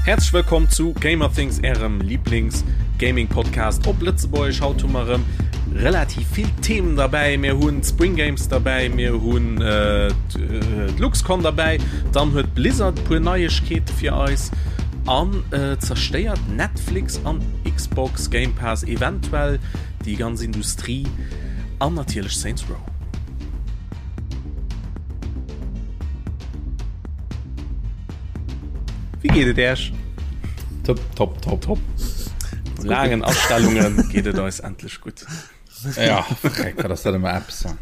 Häerzlech wëllkomm zu Gamerthings, ärem Lieblings-Gaming-Podcast op Lëtzebuergesch. Haut hu mer erëm relativ vill Themen derbäi. Mir hunn d'Spring Games derbäi, mir hunn d'LuxCon derbäi, dann huet Blizzard e puer Neiegkeete fir eis an zerstéiert Netflix an Xbox Game Pass eventuell déi ganz Industrie an natierlech Saints Row. Wéi geet et Äech? Top, top, top. Top. No laangen Astellunge geet et eis endlech gutt. Ja, freck, wat ass dat ëmmer eppes. Ja,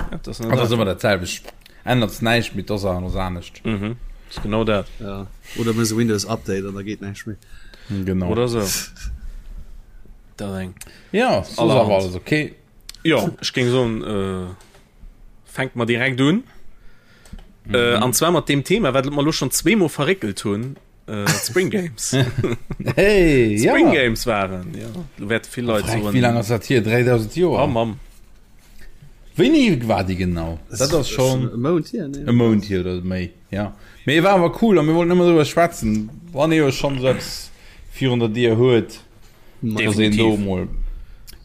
dat ass Dat ass ëmmer dat selwecht. Ännert näischt, mee d'Oss ass anescht. Mhm. Ass genau dat. Ja. Oder mëss e Windows Update an da geet näischt méi. Genau. Oder sou. Dat eng. Ja, soss awer alles okay. Jo, ech géing soen, äh, fänke mer direkt un. Mhm. Äh, an zwar mat dem Thema, wat mer lo schon zweemol verréckelt hunn, äh, Spring Games. Hey, Spring ja. Games waren, ja. Do wäerte vill Leit soen. Wéi laang ass dat hier? 3000 Joer? Oh Mamm. Wéini war déi genau? Dat ass schon e Mount hier, ne? E Mount hier oder méi, ja. Mee war awer cool a mir wollten ëmmer driwwer schwätzen, wann ee jo schon esou eppes virun der Dier huet, dass een do mol.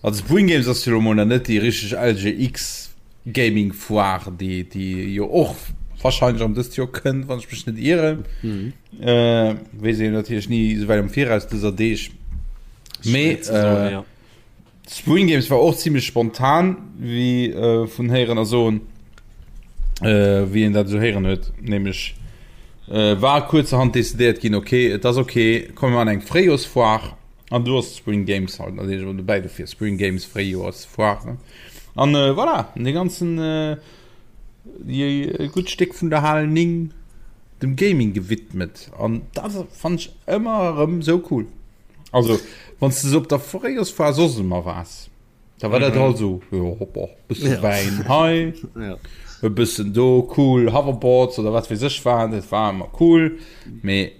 Also Spring Games ass jo lo mol nach net déi richteg LGX. Gaming Foire déi déi jo och wahrscheinlech am dëst Joer kënnt, wann ech mech net ieren. Mhm. Äh, weess een natierlech ni esouwäit am Viraus dëser Deeg. Mee äh, ja. Spring Games war och ziemlech spontan, wéi äh, vun héieren a soen, äh, wéi een dat esou héieren huet, nämlech äh, war kuerzerhand decidéiert ginn, okay, et ass okay, komme mer an eng Fréijorsfoire an du ass Spring Games halt natierlech och dobäi dofir Spring Games Fréijorsfoire. An äh, voilà, de ganzen äh, e gutt Stéck vun der Hal 9 dem Gaming gewidmet. An dat fand ich ëmmer erëm sou cool. Also wann du op der Fréijorsfoire soss ëmmer waars, da war dat mhm. halt so jo, boah, bëssen ja. Wäin hei, ja. e bëssen do cool Hoverboards oder wat weess ech war, dat war ëmmer cool. Mee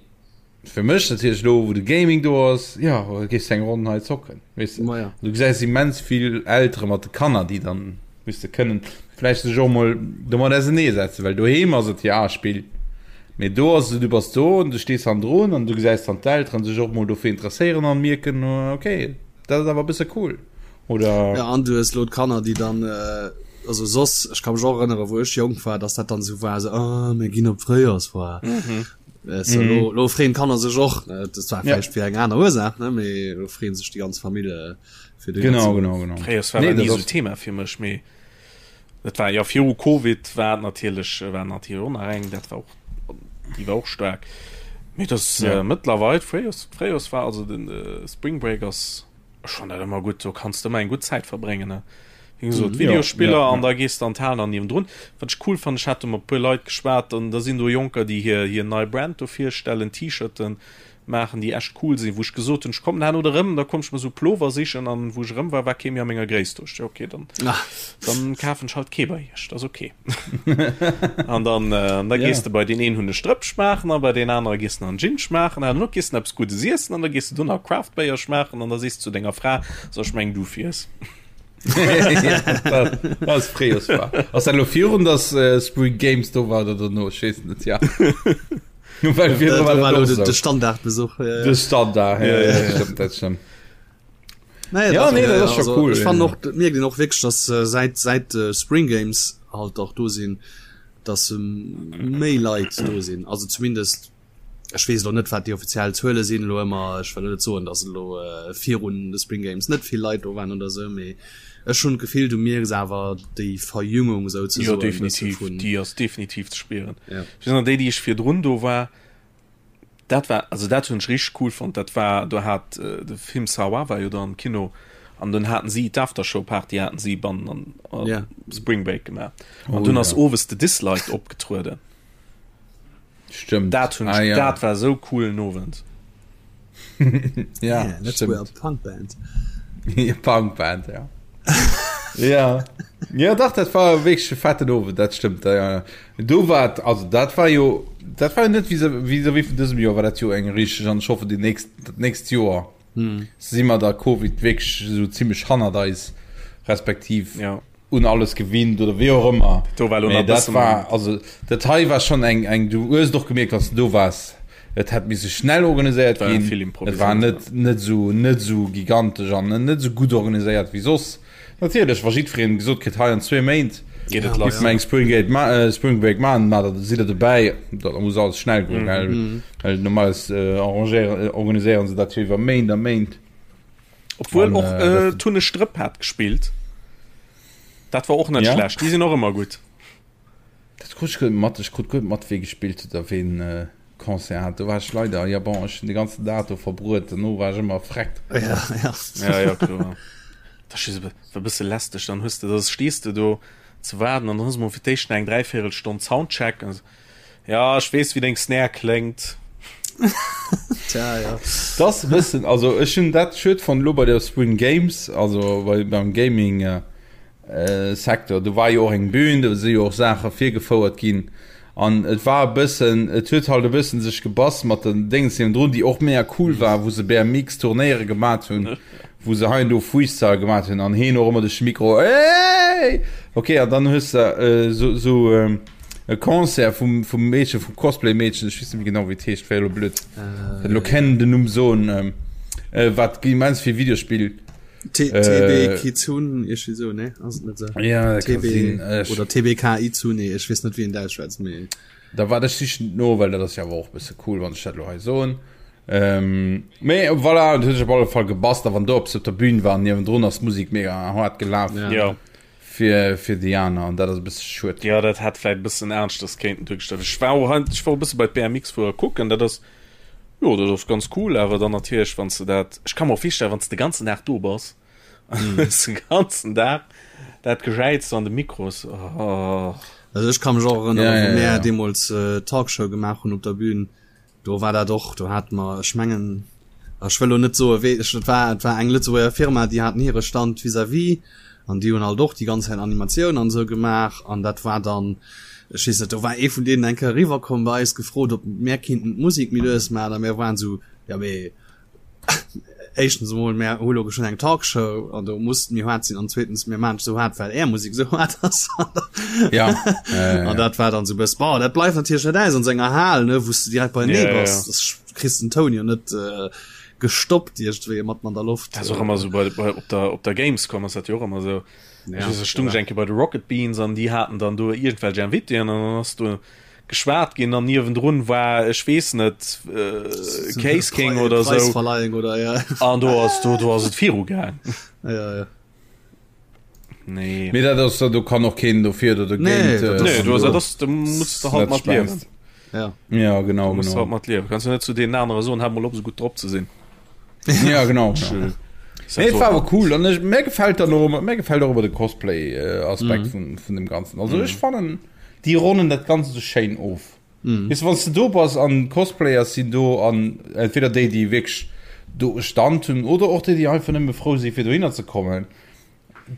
Fir mech natierlech elo wou de Gaming do ass, jo gees de eng Ronn hei zocken, weess de. Ma ja. Du gesäis immens vill Eltere mat de Kanner, déi dann, weess de, kënnen vläicht sech och mol domat ausenee setzen, well doheem ass et jo Spill, mee do ass et, du bass do an du stees hannendrun an du gesäis dann d'Elteren sech och mol dofir interesséieren an mierken, okay, dat ass awer e bësse cool oder. Ja, an du hues elo d'Kanner, déi dann, also soss, ech ka mech och erënneren, wou ech jonk war, dass dat dann esou war, esou, ah, mir ginn op d'Fréijoersfoire. So, mm. lo, lo freeën d'Kanner sech och dat war ja. fir eng aner Ursaach ne mee lo freeën sech déi ganz Famill äh, fir de genau genau genau Fréiers war nee, nie so Thema fir mech mee dat war ja viru Covid war natierlech äh, war natierlech och nach eng dat war och déi war och staark mee das ja. äh, mëttlerweil Fréiers Fréiers war also den äh, Spring Break ass Ech fann dat ëmmer gutt, do kanns de ëmmer eng gutt Zäit verbréngen, ne? Wéi gesot, Ja, Videospiller ja, an ja. da gees de an d'Hal an niewendrun. Wat ech cool fannen, ech hat do mat e puer Leit geschwat an da sinn do Jonker, déi hir, hir nei Brand do virstellen, T-Shirten maachen, déi echt cool sinn, wou ech gesot hunn, ech kommen herno erëm, da komm ech mer sou Plover sichen an wou ech erëm war, war kee méi a menger Gréisst do. Ech, okay, dann, dann kafen ech halt kee bei iech, dat ass okay. An dann, äh, da gees Ja. de bei deen een hunn e Strëpp schmaachen a bei deen anere gees de nach en Gin schmaachen an herno gees de eppes Guddes iessen an da gees de do nach Craft Béier schmaachen an da sees de zu denger Fra, so ech meng du fiers. Dat dat ass Fréijoersfoire. Ass dat elo virun, dass äh, Spring Games do war oder dono? Ech weess net, ja. Well virdru war dat och de, sou. de Standardbesuch. Ja, ja. De Standard, ja, Ja, ja, ja, ja. stimmt, dat stimmt. Naja, Ja, dat, nee, dat ass scho also, cool, Ech fannen ja. och, dat mierkt een och wierklech, dass äh, säit, säit äh, Spring Games halt och do sinn, dass ähm, méi Leit do sinn. Also zumindest, ech weess elo net, wat déi offiziell Zuele sinn elo ëmmer. Ech wëll net soen, dass elo äh, virun de Spring Games net vill Leit do waren oder sou, mee ech hunn d'Gefill, du mierks awer déi Verjüngung souzesoen. Jo, e bësse definitiv, vun- déi ass definitiv ze spieren. Ja. Ech weess nach, déi, déi ech virdrun do war, Dat war, also dat hunn ech richteg cool fonnt, dat war, do hat de Film Sawa war jo do am Kino an dunn haten si d'Aftershow Party haten si bannen an an Ja. Spring Break gemaach an Oh dunn ass ja. owes de Dislike opgetrueden. Stëmmt. Dat hunn Ah ech, ja. dat war esou coolen Owend. Ja, Yeah, let's wear a stimmt. punk band. Punk Band, ja. ja. Ja, dach, dat war wierklech e fetten Owend, dat stëmmt. Ja, ja. Do war et, also dat war jo, dat war jo net vis-à-vis vun dësem Joer war dat jo eng richteg, an ech hoffen déi nächst, dat nächst Joer si mer da Covid wierklech esou zimmlech hannert eis, respektiv Ja. un alles gewinnt oder wéi och ëmmer. Do war elo Mee nach dat bëssen. war, also dat hei war schonn eng, eng, du hues et och gemierkt, wann s de do waars. Et hätt misse schnell organiséiert War ginn. vill Et war improviséiert, net net esou net esou gigantesch an net esou gutt organiséiert wéi soss. Natierlech, wa jiddwereen gesot kritt, hei an zwee Méint Geet et giff lass. mer eng Spring Gate ma äh, Spring Break maachen, ma da sidd der dobäi. Da muss alles schnell goen, gell? Well normalerweis äh, arrangéieren, äh, organiséieren se dat jo iwwer Méint a Méint. Obwuel An, och äh, äh, dat- Tunne Strëpp hat gespillt. Dat war och net Ja? schlecht. Déi sinn och ëmmer gutt. Dat krut ech guer net mat. Ech krut guer net mat, wee gespillt huet a ween Concert hat. Do war ech leider, ja bon, ech hunn de ganzen Dag do verbruet. Dono war ech ëmmer erfreckt. Ja, ja. Ja, ja, kloer. Dat ass just e e bësse lästeg. Dann hues de, da stees de do ze waarden an dann hues de mol fir d'éischt nach eng Dräivéierelstonn Soundcheck. An ja, ech weess, wéi deng Snare kléngt. Tja, ja. Dat ass e bëssen, also ech hunn dat schued fonnt elo bei der Spring Games, also bei, beim Gaming, Secteur. Do war jo och eng Bühn, do si jo och Saache virgefouert ginn an et war e bëssen, et huet halt e bëssen sech gebass mat den Déngens niewendrun, déi och mega cool war, wou se BMX Turnéiere gemat hunn, wou se hei an do Freestyle gemat hunn an heen och ëmmer duerch de Mikro Hey! Ok, an dann hues de esou esou e Concert vum vum Meedchen, vum Cosplay Meedchen, ech weess net méi genau wéi et heescht, wär elo blöd elo kennen den Numm soen, wat immens vill Videospill TB Kizun iergendwéi sou, ne? Ass et net sou? Ja, dat ka TB sinn. Ech, oder TBK Izune, ech weess net wéi een dat ausschwätzt, mee. Da waart ech sichen et no, well dat ass jo awer och e bësse cool, wann ech dat elo hei soen. Ähm, mee voilà, et huet sech op alle Fall gebasst a wann do eppes op der Bühn war an niewendrun ass d'Musek mega haart gelaf Ja. Ja. fir, fir déi aner an dat ass e bësse schued. Ja, dat hätt vläit e bëssen aneschters kéinten duergestallt. Ech war och, ech war och e bësse bei d'BMX-Fuerer kucken, dat ass, Jo, dat ass ganz cool, awer dann natierlech wann s de dat, ech ka mer och virstellen, wann s de de ganzen Dag do bass an hues de ganzen Dag dat Gejäiz an de Mikros, oh. Also ech ka mech och erënneren, Ja, wou ja, mär ja. deemools Talkshow gemaach hunn op der Bühn, do war dat och, do hate mer, ech mengen, ech wëll lo net soe wee, ech, et war, et war eng Lëtzebuerger Firma, déi haten hire Stand vis-à-vis An déi hunn halt och déi ganz Zäit Animatioun an esou gemaach. An dat war dann, ech weess net, do war ee vun deenen eng Kéier eriwwer komm bei eis, gefrot, ob mär kinnten d'Musek méi lues maachen. A mär waren esou, jo mee éischtens emol, mär hu lo geschwënn eng Talkshow an do muss et méi haart sinn. An zweetens, mir maachen et esou haart, well är Musek esou haart ass. Ja, An dat war dann esou e bëss, bon, dat bleift natierlech net aus an esou enger Hal, ne, wou s de direkt beienee Ja, ja, bass. ja. Das kriss den Toun jo net gestoppt iergendwéi matten an der Loft. Dat ass och ëmmer esou bei, bei, op der, op der Gamescom ass dat jo och ëmmer esou. Ja, Ech weess, ech stung ech eng Kéier bei de Rocket Beans an déi haten dann do iergendwelch Invitéen an dann ass do geschwat ginn an niewendrun war, ech weess net, äh, Case King oder esou. Preisverleihung oder ja. An do ass, do, do ass et viru gaang. Ja, ja. Nee. Mee dat ass, do kann och keen dofir oder dogéint. Nee, dat ass- Nee, du, dat ass, do muss de halt mat liewen. Ja. Ja, genau, Du musst genau. halt mat liewen. Kannst du net zu deenen anere soen, hat mol op, esou gutt drop ze sinn. Ja, genau. genau. Nee, et war awer cool an ech, mir gefällt dann och ëmmer, mir gefällt och ëmmer de Cosplay äh, Aspekt mm. vun, vun dem Ganzen. Also mm. ech fannen, déi ronnen dat Ganze so schéin of. Mm. Weißt du, wann du do bass an Cosplayers sinn do an entweder déi, déi wierklech do e Stand hunn oder och déi, déi einfach nëmme frou si fir dohinner ze kommen.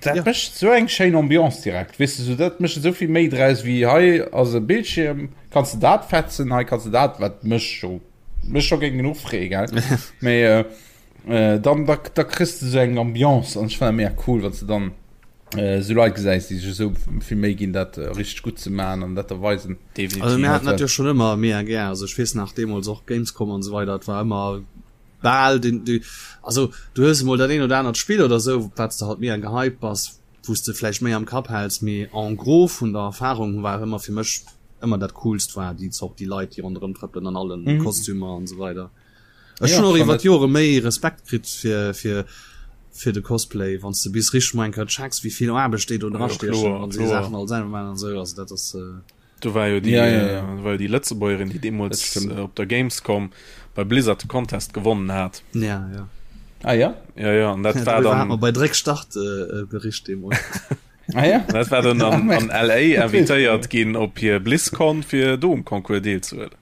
Dat ja. mécht sou eng schéin Ambiance direkt. Weißt du, so, dat mécht esou vill méi draus wéi hei ass e Bildschirm, kanns du dat fetzen, hei kanns du dat, wat mech scho mech scho géing genuch freeë, gell? Mee äh, äh, dann da, da kriss du sou eng Ambiance an ech fannen dat mega cool, wann du dann äh, sou Leit gesäis, déi sech esou vill Méi ginn, dat äh, richteg gutt ze maachen an dat der weisen. Definitiv. Also mir haten dat jo schon ëmmer mega gär. Also ech weess nach deemools och Gamescom an esou weider, et war ëmmer bal den du also du hues emol dat een oder anert Spill oder esou wat s de halt mega gehypt bass, wou s de vläicht méi am Kapp häls, mee en gros vun der Erfahrung war ëmmer fir mech ëmmer dat coolst war déi Zort déi Leit déi ronderëm trëppelen an allen mm. Kostümer an esou weider. Ech hunn och iwwer d'Jore méi Respekt kritt fir fir fir de Cosplay, wann s de bis richteg mol eng Kéier checks wéi vill Aarbecht déi do dra stiechen an déi Saachen all selwer maachen an esou, also dat ass äh, Do war jo déi, ja, ja, ja. Äh, war jo déi Lëtzebuergerin, déi deemools äh, op der Gamescom bei Blizzard de Contest gewonnen hat. Ja, ja. Ah ja? Ja, ja, an dat ja, war dann. Hat bei Dréck Start äh, äh, Bericht deemools. ah ja? Dat war dann an, an LA invitéiert ginn op hir BlizzCon fir do um Concours deelzehuelen.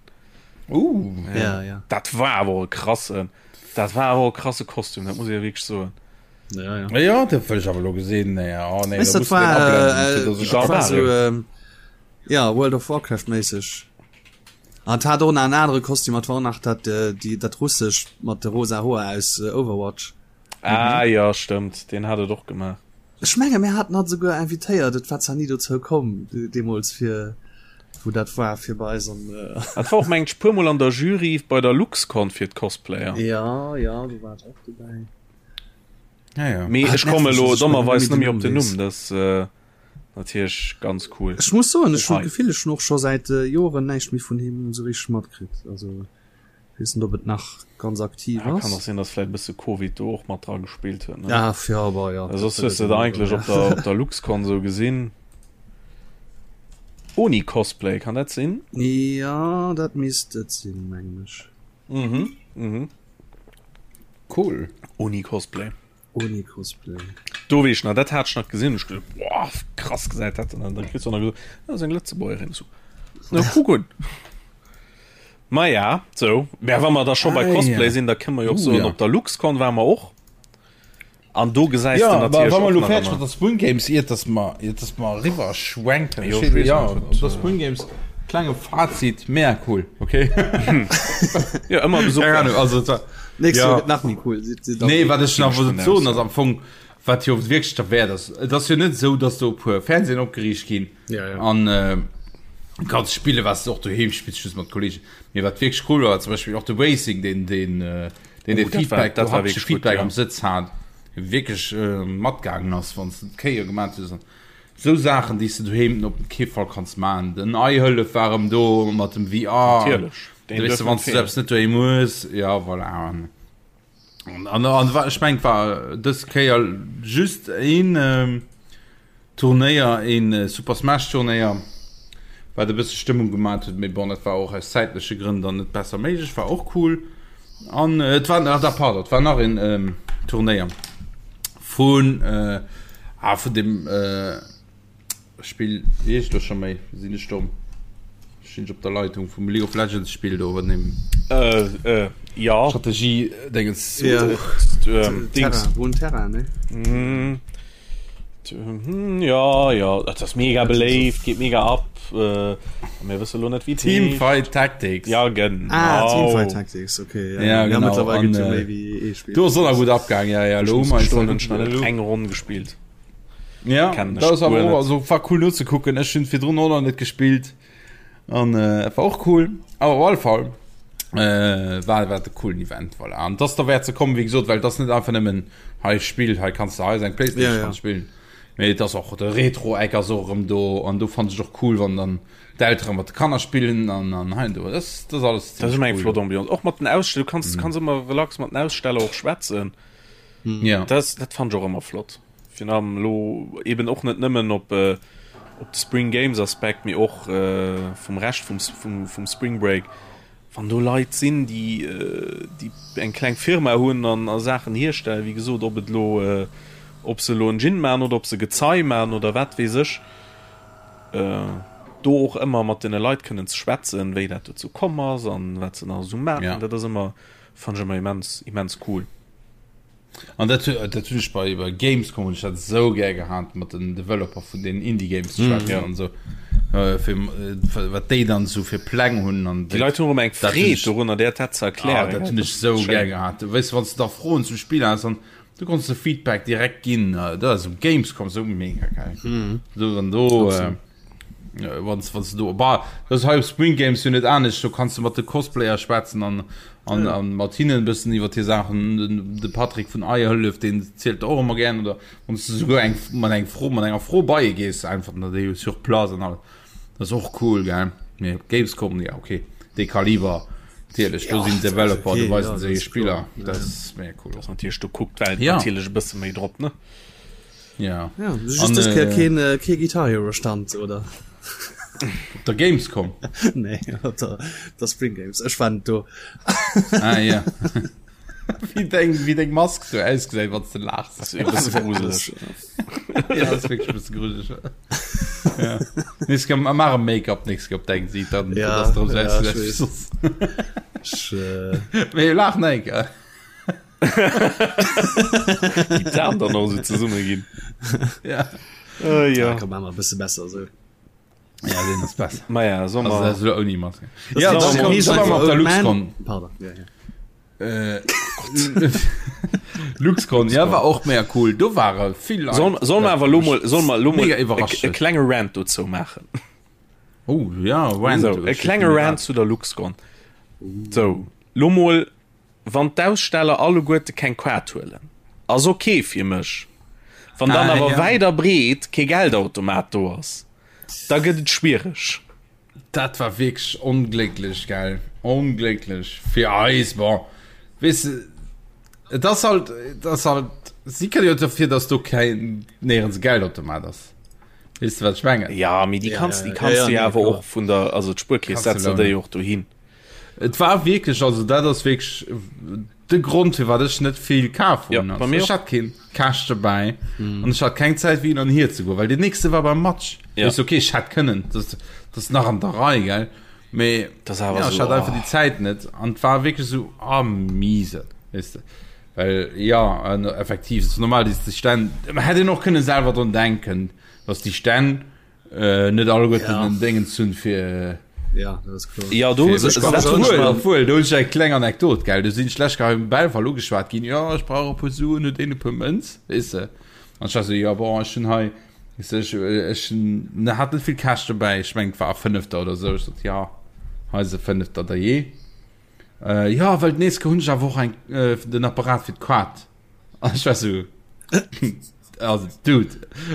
Uh. Ja, ja, ja. Dat war awer e krassen, dat war awer e krasse Kostüm, dat muss ich ja wierklech soen. Ja, ja. Ja, dat wëll ech awer lo gesinn. Nee, oh, nee, Weißt, da dat muss den war, abblenden, äh, fir dass ech dat war dat so, ähm, ja, World of Warcraft méisseg. An hat och nach en anere Kostüm, dat war och nach dat, äh, déi, dat russesch mat de rosa Hoer aus äh, Overwatch. Ah ja, stëmmt, deen hat et och gemaach. Ech menge mir haten hatt souguer invitéiert, et war zwar ni dozou komm deemools fir. wou dat war fir bei eis an. Dat war och mengt ech puer mol an der Jury bei der Luxcon fir d'Cosplayer. Ja ja do war et och dobäi. Ja, ja. Mee ech komme lo dommerweis net méi op den Numm, dat natierlech ganz cool. Ech muss soen, ech hunn d'Gefill, ech hunn och scho säit Joren näischt méi vun him esou richteg matkritt. Also weess net, ob et nach ganz aktiv ass. Kann och sinn, datt vläit e bësse Covid do och mat dra gespillt huet, ne? Ja, ja, bah, ja. Soss hues de et eigentlech op der, op der Luxcon esou gesinn. Oni Cosplay, kann dat sinn? Ja, dat misst et sinn, mengen ech. Mhm, mhm. Cool. Oni Cosplay. Oni Cosplay. Do weess ech nach, dat hat ech nach gesinn, ech geduet, boah, krass gesäit dat an dann kriss du nach gesot, dat ass eng Lëtzebuergerin, so. Na, kuck un. Ma ja, sou. Mä wa mer da scho bei Ah, Cosplay ja. sinn, da kënne mer jo och Uh, soen, ja. op der Luxcon ware mer och. An do gesäis Ja, de aber natierlech wa mer och lo nach fäerdeg ëmmer. mat der Spring Games, iert dass mer, iert dass mer eriwwer schwenken, Jo, ech ech weess ja, net, op der Spring Games, klenge Fazit, mega cool, okay? Ja, ëmmer Besuch Keine Ahnung, wäert. also et war, Nächst ja. Joer gëtt nach méi cool. Si- si- Nee, wat ech nach Ginn ech wollt vun soen, aus, ass am Fong, wat jo wierklech derwäert ass, et ass jo net esou, dass do e puer Fernsehen opgeriicht ginn Ja, ja. an äh, kanns spille wat du och doheem spills, just mat Kollegen. Mee wat wierklech cool war, war zum Beispill och de Racing, deen deen äh, deen Oh, de dat war- Feedback, dat do war haptesche wierklech gutt, Feedback ja. am Sëtz hat, wierklech äh, matgaangen ass, wann s de d'Kéier gemaat hues. Sou Saachen, déi s de doheem op kee Fall kanns maachen. Den Eihëllef war erëm do mat dem VR. Natierlech, deen Weess duerf de, net wann s du feelen. eppes net doheem hues, ja voilà. An, an, an war, ech mengt war dës Kéier just een ähm, Turnéier, een äh, Super Smash Turnéier, wat e bësse Stëmmung gemaat huet, mee bon, dat war och aus zäitleche Grënn dann net besser méiglech, war och cool. An äh, et war, ah, da, pardon, et war nach een ähm, Turnéier vun äh, ah, vun dem äh, Spill, wéi heescht elo scho méi, sinn ech domm, stinn ech op der Leitung vum League of Legends Spill do, wat dem Äh, äh, ja. Strategie Dingens. Ja. Ähm, Dings. Terra, Runeterra, ne? Mm. Hm, ja, ja, dat ass mega beléift, geet mega ab. Äh, mir wësse lo net wéi et heescht. Teamfight Tactics. Ja, genau. Ah, Teamfight Tactics, okay. Ja, ja genau. mittlerweile An, gibt's ja äh, méi wéi ee Spill. Do ass och nach gutt abgaang, ja, ja, Ech lo muss hu mer eis gestoen, da hunn ech nach net gutt- eng Ronn gespillt. Ja, Kennen ech dat ass awer guer och, net. also war cool nozekucken. Ech hunn virdrun och nach net gespillt an äh, war och cool. Awer op alle Fall äh, war war de coolen Event, voilà. An das derwäert ze kommen, wéi gesot, well das net einfach nëmmen hei Spill, hei kanns du hei eng Playstation Ja, ja. kanns spillen. Mee et ass och de Retro-Eck ass och erëm do an do fand ech och cool, wann dann d'Eltere mat de Kanner spillen an an hei an do. Das, das alles Dat ass ëmmer eng cool. flott Ambiance. Och mat den Aussteller, du kanns, kanns ëmmer relax mat den Aussteller och schwätzen. Ja. Das, dat fand ech och ëmmer flott. Virun allem elo eben och net nëmmen op op de Spring Games Aspekt, mee och vum Rescht vum vum vum Spring Break, wann do Leit sinn, déi déi eng kleng Firma hunn an a Saachen hierstellen, wéi gesot, ob et elo ob se elo en Gin maachen oder ob se Gezei maachen oder wat weess ech, do och ëmmer mat deene Leit kënnen ze schwätzen, wéi dat dozou komm ass an wat se nach esou maachen, dat ass ëmmer, fannen ech ëmmer immens immens cool. An dat, dat hunn ech bei, bei Gamescom hunn ech dat esou gär gehat, mat den Developer vun den Indie Games ze schwätzen ja. an esou. Äh, fir, äh, wat déi dann esou fir Pläng hunn an Déi Leit hunn och ëmmer eng dat hunn Freed ech- dorunner, där dat ze Ah, erklären. dat hunn ech esou gär gehat. Weess du, wann s du da Froen zum Spill has, an du konns de Feedback direkt ginn. Äh, Dat ass um Gamescom esou mega geil. So, wann do, äh, Wann wann du bah, das hei op Spring Games jo net anescht, do kanns du mat de Cosplayer schwätzen an an ja. an mat hinnen bëssen iwwer hir Saachen. Den, de Patrick vun Eierhëllef, den zielt och ëmmer gern oder wann du souguer eng mat eng Fro mat enger Fro bei gees einfach na déi sur place an all. Das ass och cool gell. Mee op Gamescom ja okay. Dee Kaliber natierlech, do sinn Developer, do weisen se hir Spiller. Dat ass mega cool. Das natierlech do kuckt d'Welt Ja. natierlech e bësse méi drop ne. Ja. Ja, just an, äh, keen, äh, kee Guitar Hero Stand oder op der Gamescom nee, op der, der Spring Games ech war do ah, ja. wie deng wie deng Mask so ausgesäit wann du lachs ja, das wirklich bisschen gruselig ja. Nächst Mal mach e Make-up nächst op deng sieht dann ja, das drum ja, ich, äh... Mee lach net gell Déi d'Aen dann och esou zesumme ginn. Ja. Äh, ja. Ja, komm, machen wir e bësse besser so. Ja, den ass besser. Ma ja, soll Also, mer. das ist ouni Maske. Ja, ist dann noch komm, mal- dann waren wir op der Old Man. LuxCon. Pardon, ja, ja. Äh, LuxCon, ja, war och mega cool. Do ware vill Leit. Soll, soll mer awer lo mol, soll mer lo mol Mega e, iwwerrascht e huet. klenge Rant dozou maachen? Oh ja, Rant. So, e klenge Rant zu der LuxCon. So, lo mol, wann d'Aussteller alleguerte keng Kaart huelen, ass ok fir mech. Wann dann ah, awer ja. wäit a breet kee Geldautomat do ass, da gëtt et schwiereg. Dat war wierklech onglécklech, gell? Onglécklech fir eis. Bon, weess de, et ass halt, et ass halt, si kënne jo dofir, dass do keng, néierens e Geldautomat ass. Weess de, wat ech mengen? Ja, mee déi kanns, déi kanns du jo awer och vun der, also d'Spuerkeess setzt der déi och dohin. Et war wierklech, also dat ass wierklech de Grond firwat ech net vill kaf hunn. Ja, ech hat keen Cash dobäi mm. an ech hat keng Zäit wéi an hier ze goen, well den nächste war beim Match. Ja. Ist okay, ech hätt kënnen, das, das nach an der Rei gell. Mee das awer ja, so, ech hat einfach oh. déi Zäit net an war wierklech so ah, miese. Weißt du? Well ja an effektiv ist normal déi Stänn hätt een och kënne selwer drun denken, dass déi Stänn Äh, net alleguerten ja. den Déngens hunn fir ja, dat ass kloer. Ja, do fir, dat obwohl, obwohl, do hunn ech eng kleng Anekdot, gell. Do sinn ech lech hei um Belval ugeschwat ginn, ja, ech brauch e puer Suen, huet een e puer Mënz, weess de. An ech war sou, ja, bon, ech hunn hei, weess de, ech, ech hunn, hat net vill Cash dobäi, ech meng, et war e Fënnefter oder sou. Ech sot, ja, hei ass e Fënnefter, dajee. Äh, ja, well d'nächst Kéier hunn ech awer och eng, äh, den Apparat fir d'Kaart. An ech war sou, also Dude,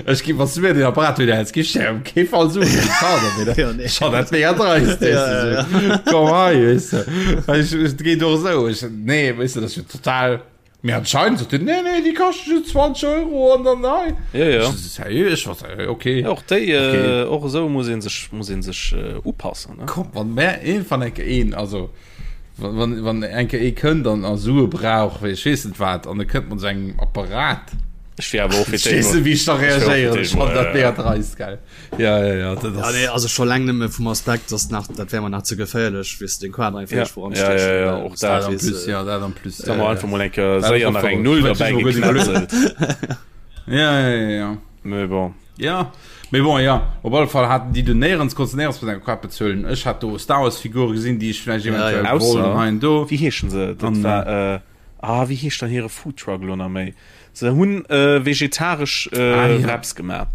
ech gi was mir den Apparat wieder häls, gi ech dir op kee Fall Suen fir d'Kart op, oder? Ja, nee. Schon dat mega dreist, Ja, weess du, ja, so. Komm hei, weess du. Well ech, et geet och esou, ech, nee, weess du, dat ass jo total, mee anscheinend sot en, nee, nee, déi kaschte just 20 Euro an dann hei. Ja, ja. Ech so, seriö, ech war so, okay. Ja, och déi, Okay. äh, och esou muss een sech, muss een sech äh, upassen, ne? Komm, wann mär een, wann enke een, also, Wann, wann eng Kéier ee kënnt an a Sue brauch, wéi ech weess net wat, an e kënnt mat esou engem Apparat. Ech wier awer och fir Ech weess net, wéi ech da reagéieren. Ech fannen dat mega dreist, gell. Ja, ja, ja, dat Ja, ass. nee, also scho laang nëmme vum Aspekt, dass nach, dat wär mer nach ze geféierlech, wéi s de den Quader einfach Ja, iergendwou ja, anstechen, ja, ja, well och s dat. dat Dat en weess, plus, ja, dat en plus. Da mer einfach mol eng Kéier Dat ass séier och nach eng verrückt. Null Ech derbäi huet mech guer net geknätzelt. Ja, ja, ja, ja. Mee bon. Ja, mee bon, ja, op alle Fall haten déi do néierens, konntst du néierens mat enger Kaart bezuelen. Ech hat do Star Wars Figure gesinn, déi ech vläicht Ja, eventuell ja. wollt an Ausser, hei an do. wéi heeschen se? Dat An, war, äh, ah, wéi heescht dann hire Foodtruck elo nach méi? Se hunn äh, vegetaresch ah, äh, ja. Wraps gemaach.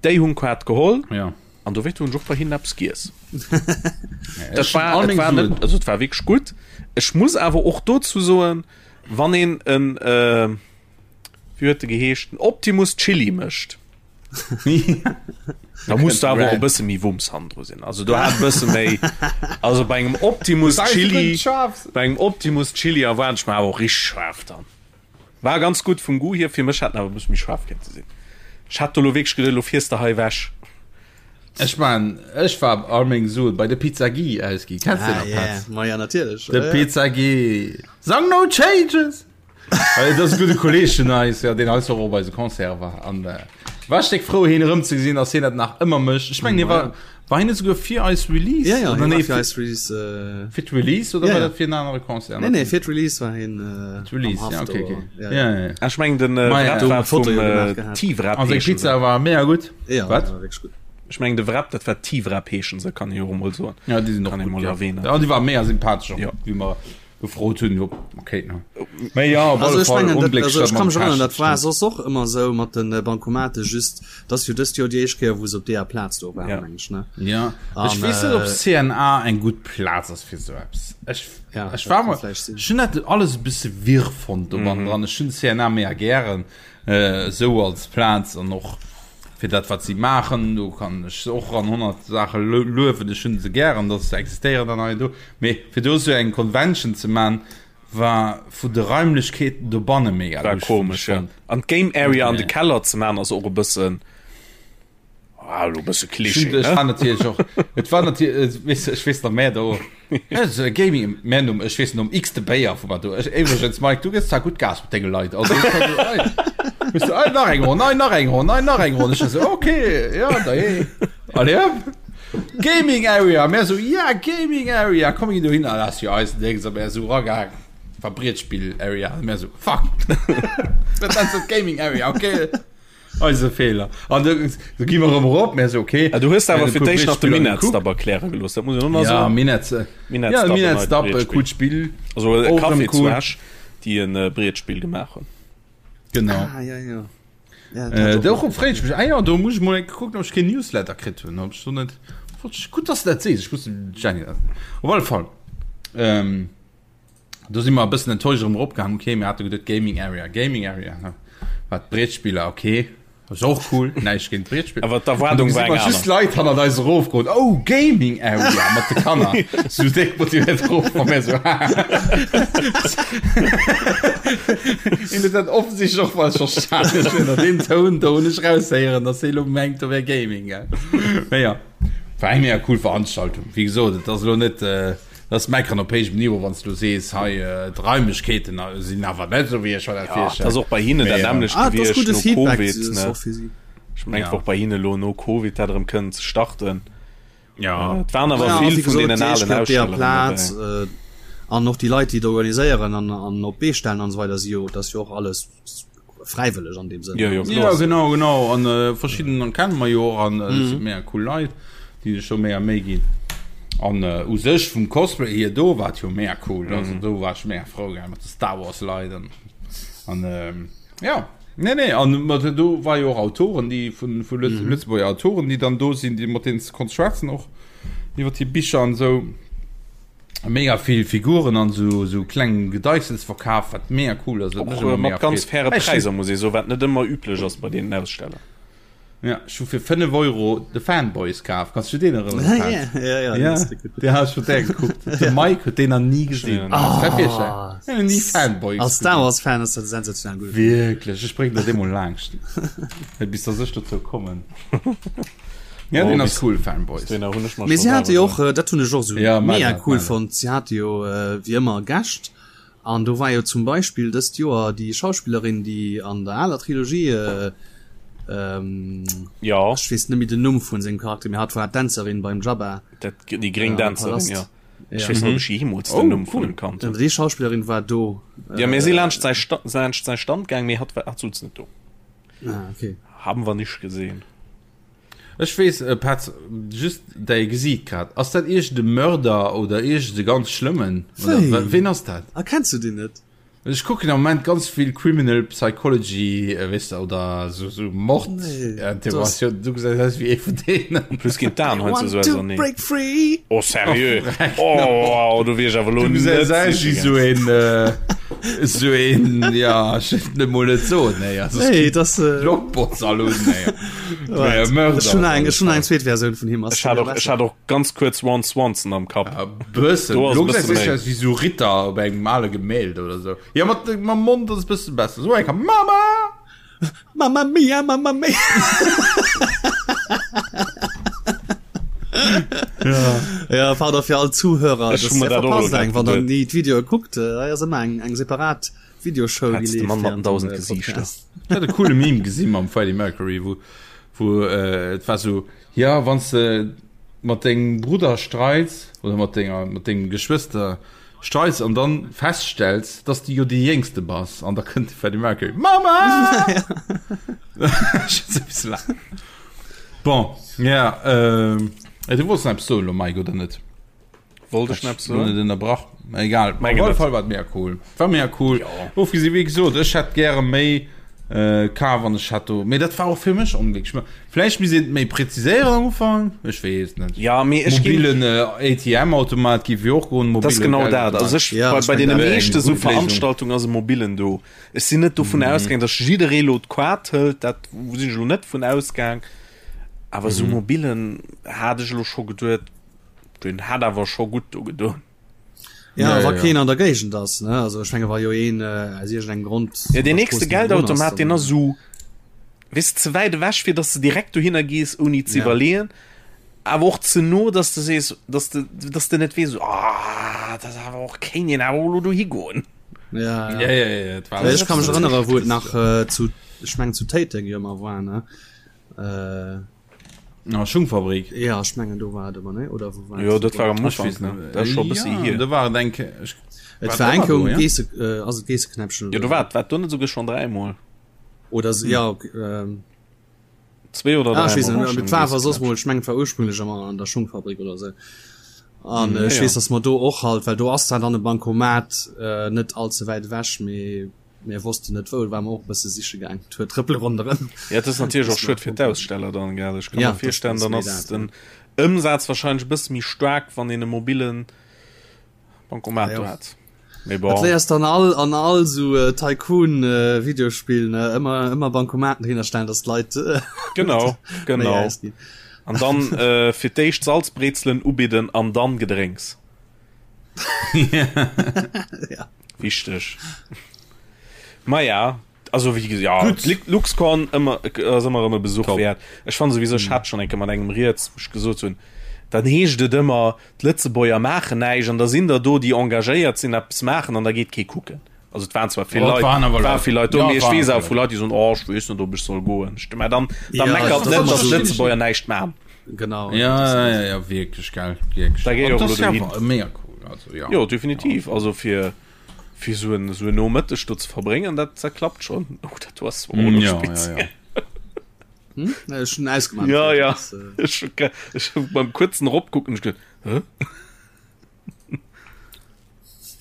Déi hunn Kaart geholl Ja. an dowéint hunn ech och bei hinnen eppes giess. Ja, Dat ech hunn war, all et meng war net, Suen. also et war wierklech gutt. Ech muss awer och dozou soen, wann een en, äh, wéi huet de geheescht, den Optimus Chili mécht, da muss du awer och e bësse méi Wumms hannendru sinn. Also do hat e bësse méi, also bei engem Optimus Chili, bei engem Optimus Chili erwaart ech mer awer och richteg schaarf dann. War ganz gutt vum Goût hier, fir mech hätt en awer e bësse méi schaarf kéinte sinn. Ech hat do lo wierklech geduet, lo fiers de hei ewech. Ech man, ech war all meng Suen bei de Pizza Guy ausgi. Kennst du Ah, den nach, yeah. Petz? Ma ja, natierlech. De Ja, ja. Pizza Guy. Sang no changes! Well dat ass e gudde Kolleeg vun eis, ja, deen eis och op eise Concert war. An äh, war ech déck frou, hien erëmzegesinn, dass hien dat nach ëmmer mécht. Ech mengen, hie war, war hien net souguer fir eis Release? Ja, ja, Oder hie nee, war fir fir, eis Release. Äh, fir d'Release oder Ja, war ja. dat fir en anere Concert? nee, nee, fir d'Release war hien äh, Release, am ja, Haft okay, do. okay. Ja, Ja, ja, ja. Ech mengen den äh, Ma ja. Wrap Do war Foto vum jo gemaach äh, gehat. T-Wrap An seng heeschen Pizza se. war mega gutt. Ja, Wat? war wierklech gutt. Ech mengen de Wrap, dat war T-Wrap heeschen se, kann ee jo och emol soen. Ja, déi sinn och Kann ee gutt, mol ja. erwähnen. Ja, déi war mega sympathesch och, Ja. wéi mer gefrot hunn op okay ne Mee ja op Also alle ech Fall mengen, dat, onglécklech also dat ech kann mam mech erënnern, Cash dat war stimmt. soss och ëmmer esou mat den Bankomate, just dat ass jo dëst Joer déi éischt Kéier wou se op deeër Plaz do waren, Ja. meng ech ne. Ja ech An weess net op äh, CNA eng gutt Plaz ass fir esou eppes. Ech ja, ech dat war kann mol vläicht sinn. ech hunn dat alles e bësse wirr fonnt do Mhm. dran. Ech hunn CNA mega gären äh, esou als Plaz an och fir dat wat si maachen, do kann ech se och an 100 Saache luewen, ech hunn se gären, datt se existéieren an hei an do. Mee fir do esou eng Convention ze man, war vu de Raimlechkeeten dobanne mega War lusch, hunn ech komesch, ja. fonnt. An d'Game Area an de Nee. Keller ze man ass och e bëssen, ah, elo e bësse Ech Klischee, hunn, ech ne? war natierlech och, et war natierlech, weess, ech weess nach, mä do, Gaming, mä nom, ech weess nom x-te Béier vu mer do, ech, iwwregens Mike, du gëss zwar gutt Gas mat denge Leit, also ech war so, ei, weess du, ei, nach eng Ronn, ei, nach eng Ronn, ei, nach eng Ronn, ech war so, okay, ja, da eh, allez hop. Gaming Area, mär so, ja, Gaming Area, komm mir ginn dohin, ah, dat ass jo eisen Déngs, a mär esou eragaang, war Brietspill Area, a mär so, fuck, dat ass dat Gaming Area, okay, eise Feeler. An du, du gi mer erëm erop, mär so, okay. Ah, du hues Mir awer hunn e fir puer d'éischt nach de Brettspiller Minetz gekuckt. Dab erkläre gelooss, dat muss een och nach Ja, soen. Minetz, äh, Minetz ja, Dab, en Minetz neit Dab, äh, Brettspill. coolt Spill, Also e och erëm Café zu cool. Esch, déi en äh, Brettspill gemaach hunn. Genau. Ah, ja, ja. Ja, Äh, dat do och. freet ech mech, ah ja, do muss ech mol eng kucken, ob ech keen Newsletter kritt hunn, ob ech do net. Gutt, dass de dat sees, ech muss dem Jenny dat. Op alle Fall, ähm, do si mer e bëssen enttäuscht erëm eropgaangen. Okay, mir hate geduet Gaming Area, Gaming Area, ne? Wat Breetspiller, okay, ass och cool, näischt géint Breetspiller. Awer d'Erwaardung war eng aner. Just Leit hannert eis erofgoen, oh, Gaming Area mat de Kanner, sou déck motivéiert erof, a mir sou, haha. Hien huet dat offensichtlech och falsch verstanen. Ech hunn an deem Toun do hunn ech raushéieren, dass hie lo mengt, do wär Gaming, gell. Mee ja, war eng mega cool Veranstaltung. Wéi gesot, et ass elo net, dat ass Meckeren op héijem Niveau, wann s du sees, hei d'Raimlechkeeten sinn awer net esou, wéi ech mer dat Ja, virstellen. et ass och bei hinnen dat Mee, nämmlecht Ah, et ass gewiescht gudde no Feedback, Covid, dat ass ne? och fir si. Ech mengen, Ja. och bei hinne lo no Covid dat erëm kënnen ze starten. Ja. Et waren awer Ja, vill wéi vun gesot, deenen déi alen éischt op deeër Ausstelleren Plaz dobäi. äh, an och déi Leit, déi et organiséieren an, an op d'Bee stellen an esou weider, si jo, dat ass jo och alles fräiwëlleg an deem Sënn. Jo, jo, Ja, kloer. genau, genau. An äh, verschidden kennen mer jo och an äh, mm. mega cool Leit, déi sech do mega Méi ginn. An äh, u sech vum Cosplay hier do war jo mega cool. Mm. Also do war ech mega frou gell, mat de Star Wars Leit an, an ähm, ja. Nee, nee, an mat do war jo och Autoren, déi vun, vu Lëtz, mm. Lëtzebuerger Autoren, déi dann do sinn, déi mat denen s konnt schwätzen och iwwer déi Bicher an sou. Mega vill Figuren an sou sou kleng Gedeichsels verkaf, wat mega cool ass. Och mat ganz faire Präisser muss ee soen, wat net ëmmer üblech ass bei deenen Aussteller. Ja, ech hu fir 5 Euro de Fanboys kaf. Kanns du deen erënneren? Ja, ja, ja, ja. Deen hat ech vun där gekuckt. De Mike huet deen nach ni gesinn. Ah. Ni Fanboys. Als Star Wars Fan ass dat sensationell gutt. Wierklech, ech bréngen der dee mol laangscht. Bis dass ech dozou kommen. Ja, den ass cool Fanboys. Mee si hate jo och, dat hunn ech och sou ja, mega cool fonnt, si hate jo wéi ëmmer Gäscht an do war jo zum Beispill dëst Joer déi Schauspillerin, déi an der aler Trilogie ähm, ja. ech weess net méi den Numm vun sengem Charakter, mee hatt war d'Dänzerin beim Jabba. Dat, déi gréng Dänzerin, ja. Ja. Ech weess net, ob ech jeemools den Oh, Numm vun cool. em kannt hunn. Déi Schauspillerin war do. Ja, mir si laanscht säi Sta laanscht säi Stand gaang, mee hatt war hatt souz net do. Ah, okay. Haben wir nicht gesehen. Ech weess, äh, Petz, just däi Gesiit grad. Ass dat iergend e Mörder oder iergend e ganz schlëmmen? Oder Wéi? wa- ween ass dat? Ah, kenns du deen net? Ech kucken am Moment ganz vill Criminal Psychology, äh, weess de, oder so, so Mord, Nee, äh, Interrogatioun. Du gesäis aus wéi ee vun deenen. En plus ginn d'Aen Want heiansdo to sou auserneen. break free! Oh, seriö? Oh, wow, do wier ech awer elo Du net gesäis aus siche wéi sou gaang. een, äh, Sou een, ja, ech wëll et mol net soen, nee, also es Nee, gibt das, äh, Blockbots all un, nee. Wart, Mörder ech hunn eng, op ech hunn alle eng zweet Versioun vun him. Ass Ech hat och, ech hat och ganz kuerz Ron Swanson am Kapp. Fall. Ja, bëssen. Do ass e Lo gesäis bësse du méi. aus wéi sou Ritter op engem ale Gemälde oder sou. Ja, mat, mam Mond ass e bësse besser. Sou eng Mama! Mamma mia, mamma mia. Ja. Ja, pardon fir all Zuhörer, Ech das hu mer dat och elo verpasst grad eng, wann der geduet. ni d'Videoe kuckt, äh, hei ass ëmmer eng, eng separat Videoshow, déi Petz, de leeft Mann mat den während dem 1000 äh, Gesiichter. Podcast. Ich hat e coole Meme gesinn mam Freddie Mercury, wou, wou äh, et war so, ja, wann s de mat dengem Brudder streits oder mat denger, mat dengem Geschwëster Streits an dann feststells, dass du jo déi Jéngste bass an da kënnt de Freddie Mercury, Mama! Bon, ja, ähm, du wollts nach eppes soen elo, Mike, oder net? Wollt ech nach eppes Lo net soen? ënnerbrach, mä egal. Op Mengen alle net. Fall war et mega cool. War mega cool. Jo. Ofgesi wéi gesot, ech hätt gäre méi äh, kaf an ech hätt do, mee dat war och fir mech onglécklech. Mä Vläicht misst een et méi präziséieren am Ufank, ech weess net. Ja, mee ech ginn. Mobilen ATM-Automat géif jo och goen, Dat ass mobile genau dat. Also Geldautomat. ech, Ja, bei, ech bei meng deene dat. Wär eng meeschte sou gutt Léisung. Veranstaltungen ass e mobilen do. Ech sinn net dovun ausgaang, datt jidderee lo d'Kaart hëlt, dat sinn ech lo net vun ausgaang. Awer sou mobilen hat ech elo scho geduet, deen hätt awer scho gutt do gedoen. Ja, Ja, wa ja, keen ja. an der Géigend ass, ne? Also ech menge wa jo een äh, aus iergendengem Grond Ja, an deen der nächste Strooss niewendrun ass, Geldautomat, deen dann ass sou, weess de, ze wäit ewech, fir datt s de direkt dohinner gees, ouni ze Ja. iwwerleeën, awer och ze no, datt s de sees, datt s de, datt s de net weess, ah, dat ass awer och, kéint een awer och elo dohi goen. Ja, ja. Ja, ja, ja, et war Well ech ka mech absolut erënnere wou et richtig. nach äh, zu ech mengen zu Téiteng jo ëmmer war, ne? Äh, Ah, Schungfabrik. Ja, ech mengen do war et ëmmer, ne? Oder wou war Jo, dat war am Ech Ufank, weess ne? net. Dat ass scho e bëssi Ja, hier. do war et eng Kéier. Ech Et war war et eng ëmmer Kéier do, um ja? Geesse, äh, ass et Geesseknäppchen Jo, oder do sou? war war do net souguer schonn dräimol? Oder se, ja, okay, ähm. Zwee oder Ah, ech weess dräimol net, war mee schonn et war awer soss Geesseknäppchen. mol, ech mengen et war ursprünglech ëmmer an der Schungfabrik oder sou. An Ja, ech ja. weess, dass mer do och halt, well do ass zwar dann e Bancomat, äh, net all ze wäit ewech, mee. Mir wossten net wou, war mer och e bësse siche gaang, d'huet trëppele ronderëm. Ja, et ass natierlech och schued fir d'Aussteller dann, gell? Ech ka mer virstellen, dann ass den Ëmsaz warscheinlech e bësse méi staark, wann een e mobillen Bancomat do hätt. Mee bon. Dat léiers dann all an all sou Tycoon Videospill, ne, ëmmer ëmmer Bancomaten dohinner stellen, dass d'Leit Genau, genau. An dann fir d'éischt Salzbrezelen ubidden an dann Gedrénks. Ja. Wichteg. Maja, also wéi ja, LuxCon ëmmer ass ëmmer erëm e Besuch Top. wäert. Ech fanne souwisou, ech hat schonn eng Kéier mat engem rieds, wou ech gesot hunn, dann heescht et ëmmer, d'Lëtzebuerger maachen näischt an da sinn der do, déi engagéiert sinn, eppes maachen an da geet kee kucken. Also et waren zwar vill Leit, waren awer war vill Leit do, mee ech weess awer vu Leit, déi soen, oh ech weess net, ob ech soll goen. Ech, mä dann, da meckert net, datt d'Lëtzebuerger näischt maachen. Genau. Ja, ja, ja, ja wierklech, gell, wierklech. Da géi och elo dohin. Mega cool, also ja. Jo, definitiv. Also fir fir sou en sou en Nomëtteg do ze verbréngen, dat dat klappt schonn. Oh, dat do ass zwar och elo speziell. Ja, ja, ja. Hm? Ech hunn ausgemaach. Ja, ja. Ech hu ech hu beim kuerzen eropkucken ech geduet, hä?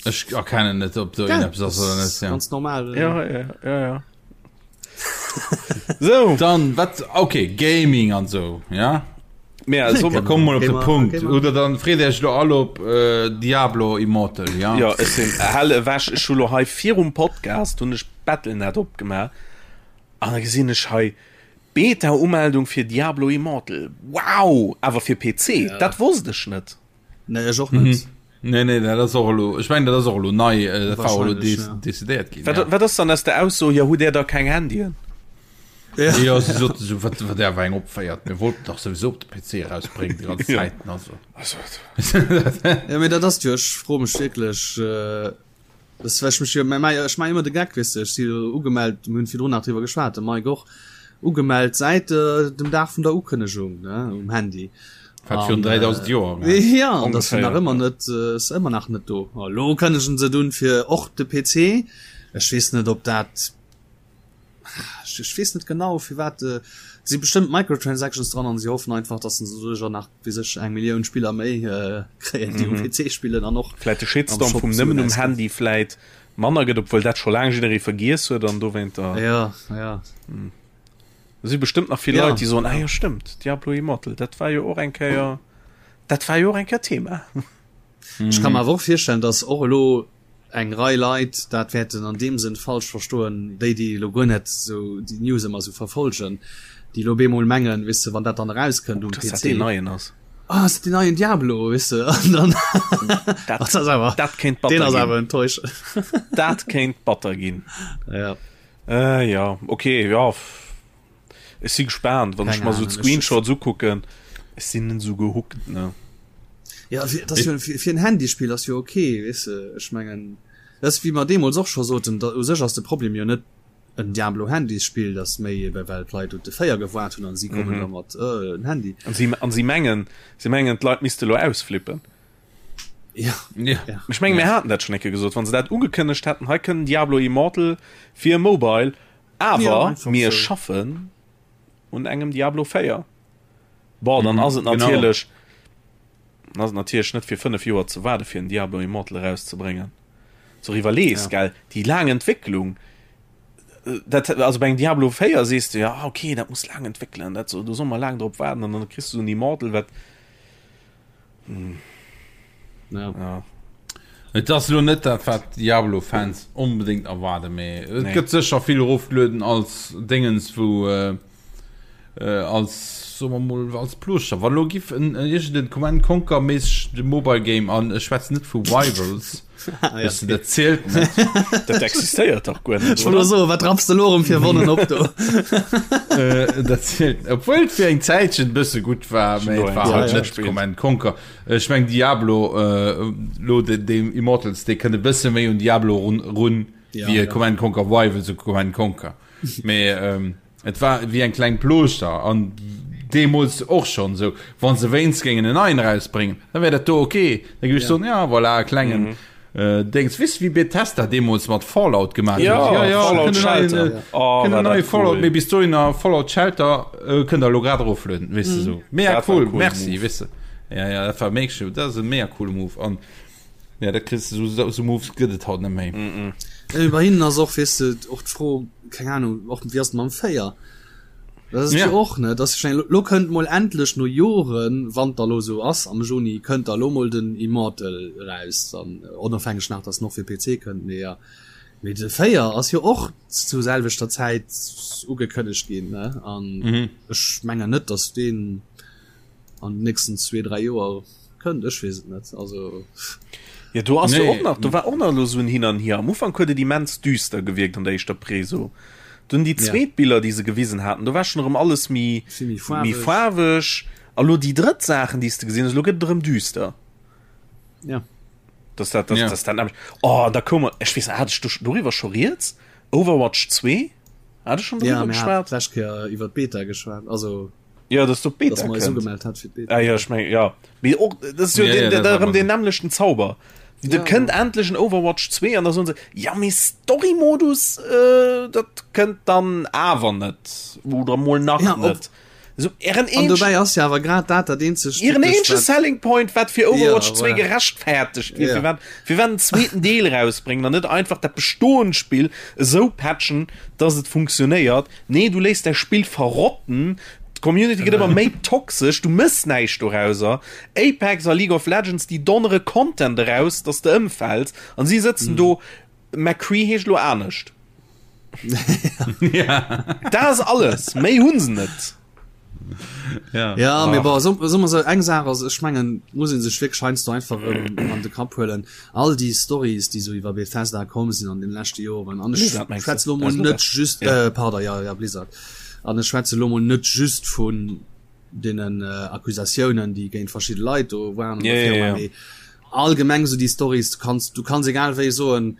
Ech erkennen net, ob do ja, eppes ass oder net. Ja. Ganz normal. Ja, ja, ja, ja. so. Dann wat okay Gaming an so ja. Mehr also, so, komm mal op de Punkt oder dann freet Iech lo all op äh, Diablo Immortal ja. Ja ech sinn hell ewech ech hu lo hei virum Podcast hunn ech Battle.net opgemaach an da gesinn ech hei Beta Umeldung fir Diablo Immortal. Wow, awer fir PC, ja. dat wosst ech net. Nee, ech och net. Mhm. Nee, nee, dat ass och elo, ech mengen, dat ass och elo nei, äh, dat war och elo des, ja. decidéiert ginn. Wat, ja. wat ass dann aus der Ausso, ja, hutt Där da keng Handyen? Ja, ja si soten so, wat, wat der war eng opféiert, mir wollten dach sowieso op de PC erausbréngen, déi ganz Zäiten, also. Also, ja, mee dat ass jo, ech froe mech wierklech, äh, Das well ech mech jo, mä ech maachen ëmmer de Geck, weess de, ech si jo ugemellt, mir hunn virdrun nach driwwer geschwat, de Mike och, ugemellt säit dem Dag vun der Ukënnegung, ne, um Handy. Wat virun 3000 Joer war. Ja, an dat ass nach ëmmer net, ass ëmmer nach net do. A lo kënnegen se et un fir och de PC. Ech weess net, ob dat Ech weess net genau firwat et si bestëmmt Microtransactions dran an si hoffen einfach dass se doduercher nach wéi sech eng Millioun Spiller méi kréien déi um PC spillen an och vläit de Shitstorm vum nëmmen um Handy vläit manner gëtt, obwuel dat scho laang jidderee vergiess huet an dowéinter ja ja do si bestëmmt nach vill Leit déi soen ah jo stëmmt Diablo Immortal dat war jo och eng Kéier dat war jo och eng Kéier Thema. Ech ka mer awer och virstellen dass och elo eng Rei Leit dat wäerten an deem Sënn falsch verstoen, déi, déi elo guer net esou déi News ëmmer esou verfolgen, déi elo bemol mengen, weess de, wann dat dann erauskënnt um PC, dass dat deen neien ass. Ah, ass dat deen neien Diablo, weess de, an dann dat ass awer, dat kéint batter ginn. Deen ass awer enttäuschend. Dat kéint batter ginn. Ja. Äh, ja, okay, ja. Ech si gespaant, wann ech mer sou d'Screenshots ukucken. Ech sinn net sou gehookt, ne. Ja, fir, das jo, fir, fir en Handyspill ass jo okay, weess de. Ech mengen, dat ass wéi mer deemools och scho soten, da u sech ass de Problem jo net en Diablo Handysspill, dat ass méi ebe well d'Leit op de 4 gewaart hunn an si kommen da mat äh, en Handy. An si, an si mengen, si mengen d'Leit misste lo ausflippen. Ja. Ja. Ja. Ech menge mir haten dat schonn eng Kéier gesot, wann se dat ugekënnegt hätten, hei kënnt Diablo Immortal fir Mobile, Awer mir schaffen un engem Diablo 4. Bon, dann ass et natierlech ass et natierlech net fir 5 Joer ze waarde fir en Diablo Immortal erauszebréngen. So iwwerlees, gell, déi laang Entwécklung, dat also bei engem Diablo 4 sees de ja okay, dat muss laang entwéckelen, dat do soll mer laang drop waarden an dann kriss du en Immortal wat Hm. Ja. ja. Et ass lo net dat wat Diablo-Fans onbedéngt erwaarden, mee et nee. gëtt sécher vill erofgelueden als Dingens wou äh, äh, als soe mer mol als Plooschter. Wann lo giff en iergend en Command Conquer méisseg de Mobile Game an ech schwätzen net vu Rivals. Ah, ja, okay. Dat zielt net. Dat existéiert dach guer net. Ech wollt soen, wat rapps de lo erëm fir Wonnen op do? Äh, dat zielt. Obwuel et fir eng Zäitchen e bësse gutt war, mee et war halt net Command Conquer. Ech meng Diablo, äh, lo de, de Immortals, dee kënnt e bësse méi un Diablo run, run ja, wéi ja. Command Conquer Rivals u Command Conquer. Mee ähm, Et war wéi eng kleng Plooschter an deemools och schonn esou, wa se wéinst géingen en neien erausbréngen, da wär dat do ok. Da géif ech soen, ja voilà, e klengen Déngs. Weess de wéi Bethesda deemools mat Fallout gemaach huet? Ja, ja, Fallout kënnt en neien, Shelter. Oh, kënnt war en neie dat Fallout, cool. mee bis dohinner Fallout Shelter kënnt der elo grad eroflueden, weess de esou. Mega Dat war cool, e coolen merci, Move. weess de. Ja, ja, dat war mega, dat ass e mega coole Move an ja, dat kriss de, esou, esou Moves gëtt et haut net méi. Äh, bei hinnen ass och weess de och d'Fro, keng Ahnung, och wéi ass et mam 4? Dat ass ja. och ne dat ech lo kënnt mol endlech no Joren, wann da lo sou ass am Juni kënnt da lo mol den Immortal raus dann äh, onofhängeg nach dass noch fir PC kënnt mee ja. Mee de 4 ass jo och zu selwechter Zäit ugekënnegt ginn ne an mhm. ech mengen net dass deen an den nächsten zwee, dräi Joer kënnt, ech weess et net. Also Ja, do ass jo och nach, do war och nach elo sou en Hin an Hier. Am Ufank huet et immens düster gewierkt an der éischter Preso. Dunn déi zweet Biller, déi se gewisen haten, do war schonn erëm alles méi, méi faarweg. A lo déi drëtt Saachen, déi s de gesinn hues, elo gëtt et erëm düster. Ja. Dass dat, dass, dass dat nämlech, oh, da koum, ech weess net, hat ech do doriwwer scho rieds? Overwatch 2? Hat ech schonn doriwwer geschwat? Ja, mir haten d'lescht Kéier iwwer d'Beta geschwat, also. Ja, dass du Beta gemeldet hat fir Beta. Ah, ja, ich mein, ja. Mee och, das ist jo ja, den, ja, den, den, den nämlechten Zauber. Ja, da kënnt ja. endlech en Overwatch 2 an da soen se ja mee Story-Modus äh, dat kënnt dann awer net oder mol nach ja, net. So, ihren An dobäi ass ja awer grad dat dat eenzegt ihren eenzege Selling Point wat fir Overwatch ja, 2 gerechtfertigt wier, ja. fir wat fir wat en zweeten Deel rausbréngen an net einfach dat bestoend Spill esou patchen, dass et funktionéiert. Nee, du léiss däi Spill verrotten, d'Community gëtt ëmmer méi toxesch, du mëss näischt dorauser. Apex a League of Legends, déi donnere Content eraus, dass de ëmfäls an si sëtzen do, McCree heescht elo anescht. Dat ass alles, méi hu se net. Ja, ja mee bon, so, so, so eng Saach ass, ech mengen, muss een sech wierklech heiansdo einfach erëm an de Kapp huelen, all déi Stories, déi sou iwwer Bethesda komm sinn an den leschte Joren, an ech schwätze lo mol net just, ja. äh, pardon, ja, ja, Blizzard, an ech schwätze lo mol net just vun deenen äh, Accusatiounen, déi géint verschidde Leit do waren, ja, ja, ja. mee allgemeng sou déi Stories, du kanns, du kanns egal wéi soen,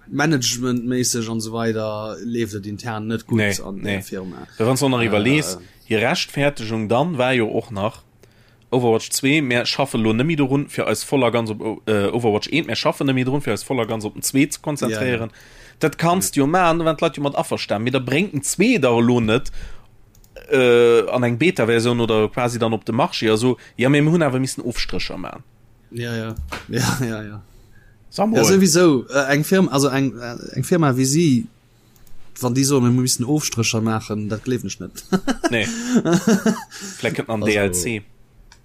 Managementméisseg an esou weider leeft et intern net gutt nee, an der nee. Firma. Wann du nach iwwerlees, hir Rechtfertegung dann war jo och nach Overwatch 2, mär schaffe lo net méi dorun fir eis voll a ganz op äh, Overwatch 1, mär schaffen net méi drun fir eis voll a ganz op den 2 ze konzentréieren. Ja, ja. Dat kanns du jo maachen, do waren d'Leit jo mat averstan, mee da bréngt den 2 dach elo net äh, an eng Beta-Versioun oder quasi dann op de Marché a so, ja mee mir hunn awer missen Ofstrécher maachen. Ja, ja. Ja, ja, ja. Ja, sowieso äh, eng Firma also eng äh, eng Firma wie sie wann die so mir müssen Ofstricher machen dat gleef ich net nee. Vielleicht kënnt an DLC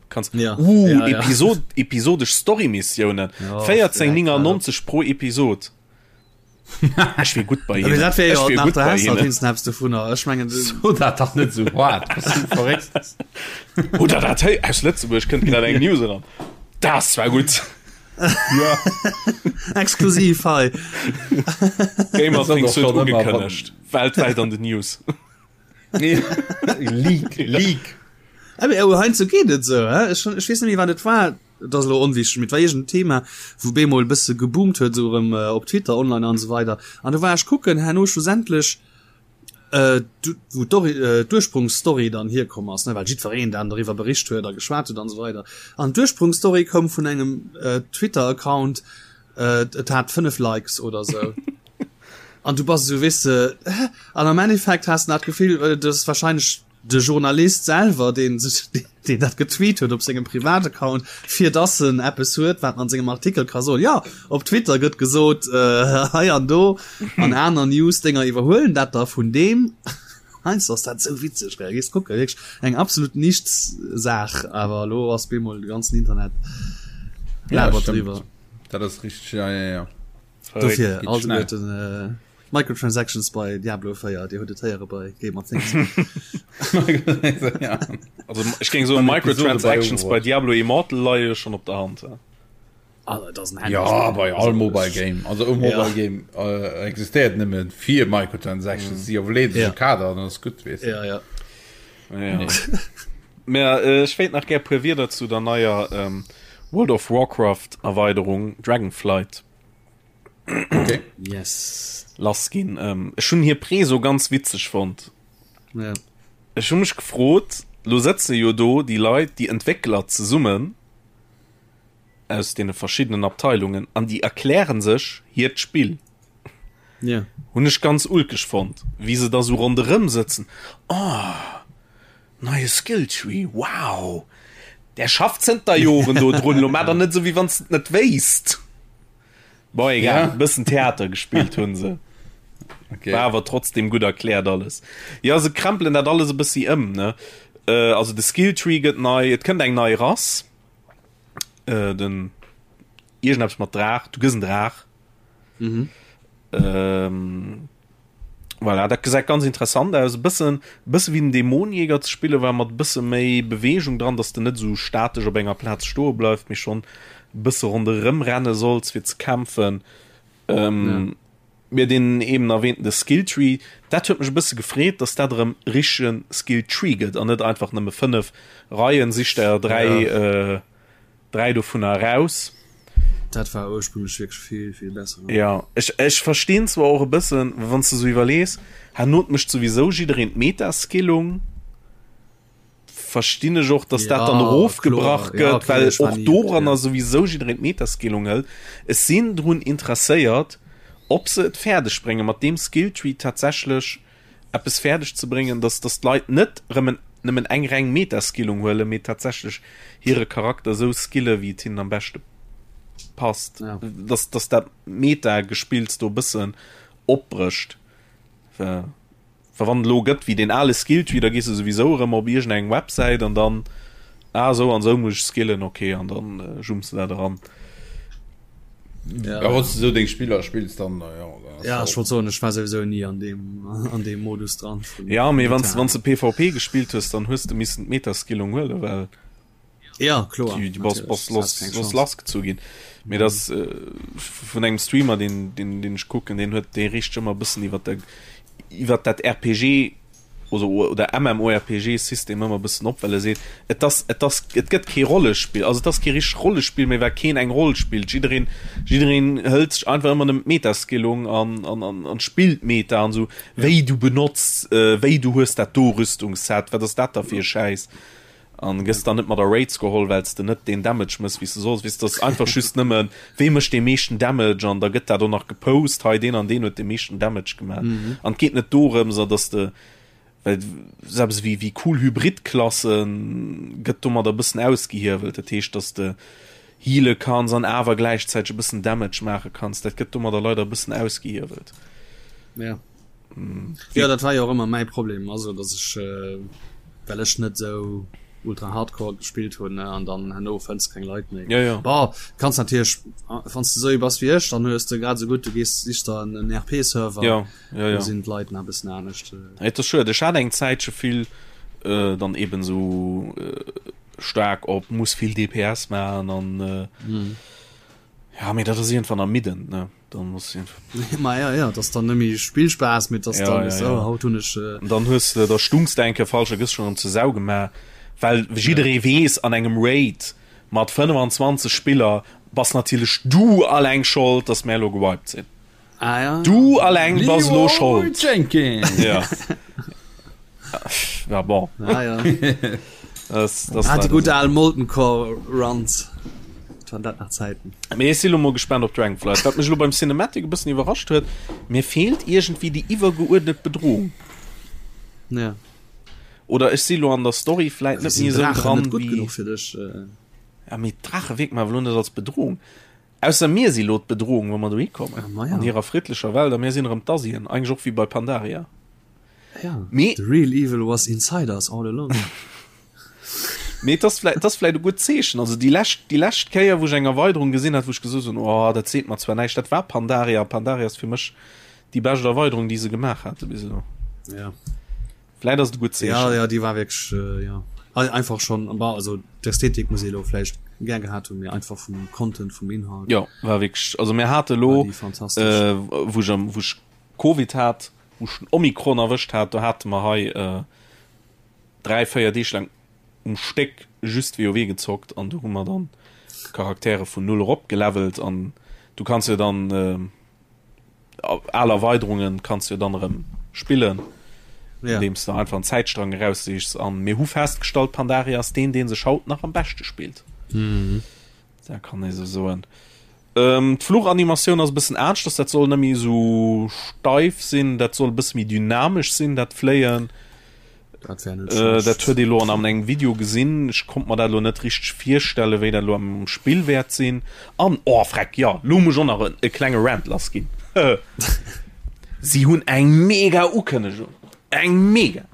kannst ja. Uh, ja, ja. Episod episodesch Storymissionen ja, 14,99 pro Episod Ech wier gutt bei hinnen. Dat wär jo nach der Hess halt Snaps dovunner. Ech mengen so dat dach net sou hart. Verréckt. Oder dat hei aus Lëtzebuerg kënnt grad eng News eran. Das war gutt. Ja. Exklusiv hei. Gamer Things huet ugekënnegt. Weltwäit an den News. Leak, Leak. Awer oh, heiansdo geet et esou, hä? Ech, ech weess net méi wat et war. Et ass elo onwichteg, mee et war iergend en Thema, wou bemol e bësse geboomt huet, esou erëm op Twitter online an esou weider. An do war ech kucken herno schlussendlech, wou d'Ursprungsstory dann hierkomm ass, ne, well jiddwereen dann doriwwer bericht huet a geschwat huet an esou weider. An d'Ursprungsstory koum vun engem Twitter-Account, et hat 5 Likes oder esou. An du bass esou, weess de, hä? An am Endeffekt has de dat Gefill, dat ass wahrscheinlech De Journalist selwer, deen sech, deen dat getweet huet op sengem Privataccount, fir dass en eppes huet, wat en an sengem Artikel ka soen, jo, op Twitter gëtt gesot, hei an do, an aner News-Dénger iwwerhuelen dat da vun deem. Heiansdo ass dat esou witzeg, gell, gees kucken, wierklech eng absolut Nichts-Saach, awer elo ass bemol de ganzen Internet labert driwwer. Dat ass richteg, ja, ja, ja. Dofir, alleguerten. Microtransactions bei Diablo 4, Dir hutt et héiere bei Gamer Things. Also ech géing soen Microtransactions bei Diablo Immortal leie jo schonn op der Hand. Ah, dat ass en Handy. Ja, bei all Mobile Game. Also e Mobile ja. Game äh, existéiert nëmme fir Microtransactions, si mm. ja. ja. Kader an ass gutt wees. Ja, ja. Ja. Mä äh, ech wéilt nach gär puer Wierder zu der neier ähm, World of Warcraft Erweiderung Dragonflight. Okay. Yes. Lass ginn. Ähm, ech hunn hir Preso ganz witzeg fonnt. Ja. Ech hu mech gefrot, lo sëtze jo do déi Leit, déi Entwéckler zesummen aus deene verschiddenen Abteilungen an déi erklären sech hiert Spill. Ja. Hunn ech ganz ulkeg fonnt, wéi se da sou ronderëm sëtzen. Oh, neie Skilltree, wow! Der schafft zënter Joren do drun, lo maach der net esou, wéi wann s de et net wéisst. Bon, egal, ja. bëssen Theater gespillt hunn se. Okay. War awer trotzdem gutt erkläert alles. Ja se krempelen dat alles e bëssi ëm ne. Äh, also de Skilltree gëtt nei, et kënnt eng nei Rass. Äh, den iergendeppes mat Draach, du gëss en Draach. Mhm. Ähm, voilà, dat gesäit ganz interessant aus. E bëssen, bësse wéi den Dämonjäger ze spille war, mat e bësse méi Beweegung dran, dass de net esou statesch op enger Plaz stoe bleifs, mee schonn e bësse ronderëm renne solls fir ze kämpfen. Ähm, ja. Mir den eben erwähnten de Skilltree, dat huet mech e bësse gefreet, dass dat erëm richtegen Skilltree gëtt an net einfach nëmme 5 Reien, sich der 3 ja. äh, 3 dovunner eraus. Dat war ursprünglech wierklech vill, vill besser. Ja, ech, ech verstinn zwar och e bëssen, wann s de sou iwwerlees, herno mécht souwisou jiddereen d'Meta-Skillung, verstinn ech och, dass dat dann erofgebrach gëtt, ja, okay, well och doranner ja. souwisou jiddereen d'Meta-Skillung hëlt. Ech sinn drun interesséiert, ob se et fäerdeg bréngen, mat deem Skilltree tatsächlech eppes fäerdeg ze bréngen, dass dass d'Leit net rëm en nëmmen eng reng Meta-Skillung huelen, mee tatsächlech hire Charakter esou skille wéi et hinnen am beschte passt. Ja. Dass dass dat Meta-Gespills do e bëssen opbrécht. Well well wann et elo gëtt wéi deen ale Skilltree, da gees de souwisou erëm op iergendeng Websäit an dann, ah esou an esou muss ech skillen, okay, an dann jumps de dat eran. Ja, ja wann du so deng Spiller spills dann ja, dann ja ech wollt soen ech war sowieso nie an dem an dem Modus dran ja mee wann wann du PvP gespillt hues dann hues du missen d'Metaskillung huele well ja kloer die, die bass, bass los, los lass gezu ginn mee das äh, vun engem Streamer den den den ech kucken den huet dee richt ëmmer bëssen iwwer der iwwer dat RPG oder oder MMORPG System ëmmer bëssen op well e seet et ass et ass et gëtt kee Rollespill also et ass kee richtegt Rollespill méi well keen eng Roll spillt jiddereen jiddereen hëlt sech einfach ëmmer nëmmen d'Metaskillung an an an an spillt Meta an esou wéi du benotz äh, wéi du hues dat do Rüstungsset wat ass dat da fir e Schäiss an gëss dann net mat a Raids geholl well s de net deen Damage mëss wéi s de solls weess dat ass einfach just nëmmen wee mécht dee meeschten Damage an da gëtt dat och nach gepost hei deen an deen huet dee meeschten Damage gemaach mhm. an et geet net dorëms a dass de well selbst wéi wéi cool Hybridklassen gëtt domadder e bëssen ausgehiewelt dat heescht dass de heale kanns an awer gläichzäiteg e bëssen Damage maache kanns dat gëtt domadder leider e bëssen ausgehiewelt ja. Ja dat war jo och ëmmer mäi Problem also dass ech äh, well ech net sou ultra hardcore gespillt hunn ne an dann herno fënns keng Leit méi. Ja, ja. Bon, kanns natierlech wann s de sou ee bass wéi ech, dann hues de grad sou gutt du gees sichs der en en RP Server. Ja, ja, ja. Do sinn d'Leit nach e bëssen anescht. Et ass schued, ech hat eng Zäitche vill äh, dann eben sou äh, staark op muss vill DPS maachen an äh, mm. ja mee dat ass iergendwann ermiddend ne. Dann muss Ma ja, ja, das dann nëmme Spillspaß mit das ja, dann ja, ist, ja. Oh, haut hun ech äh... dann hues de da stungs de enke falsch gëss schon ze Sau gemaach well jidderee ja. wees an engem Raid mat 25 Spiller bass natierlech du alleng schold dass mär lo gewiped sinn ah, ja. du alleng bass lo schold Jenkins ja. ja bon ah, ja. das, das ah, die gute al Molten Core Runs waren dat nach Zäiten. Mee ech si lo mol gespaant op Dragonflight. Wat mech lo beim Cinematic e bëssen iwwerrascht huet, mir feelt iergendwéi déi iwwergeuerdnet Bedrohung. Ja. Oder ech si lo an der Story vläit net méi esou dran net gutt wéi. genuch fir dech. Äh. Ja, mee d'Drache wierken mer awer lo net als Bedrohung. Ausser mir si lo d'Bedrohung, wa mer dohi kommen. Ah, ma ja. An hirer friddlecher Welt a mir sinn erëm d'Asien, eigentlech och wéi bei Pandaria. Ja. Mee. The real evil was inside us all along. Mee et ass vläit, et ass vläit e gutt Zeechen. Also déi lescht, déi lescht Kéier, wou ech eng Erweiderung gesinn hat, wou ech gesot hunn, oh, dat seet mer zwar näischt, dat war Pandaria. Pandaria ass fir mech déi bescht Erweiderung, déi se gemaach hate bis elo. Ja. Vläit ass et e gutt Zeechen. Ja, ja, déi war wierklech, äh, ja. Einfach schon, bah, also d'Ästhetik muss ee elo vläicht gär gehat hunn, mee einfach vum Content, vum Inhalt. Jo, war wierklech, also mir hate elo, War déi fantastesch. äh, wou ech am, wou ech Covid hat, wou ech den Omikron erwëscht hat, do hate mer hei, äh, 3, 4 Deeg laang um Stéck just WoW gezockt an do hu mer dann Charaktere vun null erop gelevelt an du kanns jo dann äh, al Erweiderungen kanns jo dann erëm spillen, ja. andeems du einfach en Zäitstrang eraussichs an mir hu festgestallt Pandaria ass deen deen sech haut nach am beschte spillt. Mhm. Da kann ee sou soen. Ähm, D'Fluchanimatioun ass e bëssen aneschters, dat soll net méi esou steif sinn, dat soll e bësse méi dynamesch sinn, dat Fléien. Dat wär net schlecht. Dat huet ee lo an engem Video gesinn. Ech konnt mer dat lo net richteg virstellen, wéi dat lo am Spill wäert sinn. An, oh freck, jo, lo muss ech och nach e klenge Rant lass ginn. Si hunn eng mega Ukënnegung. Eng mega!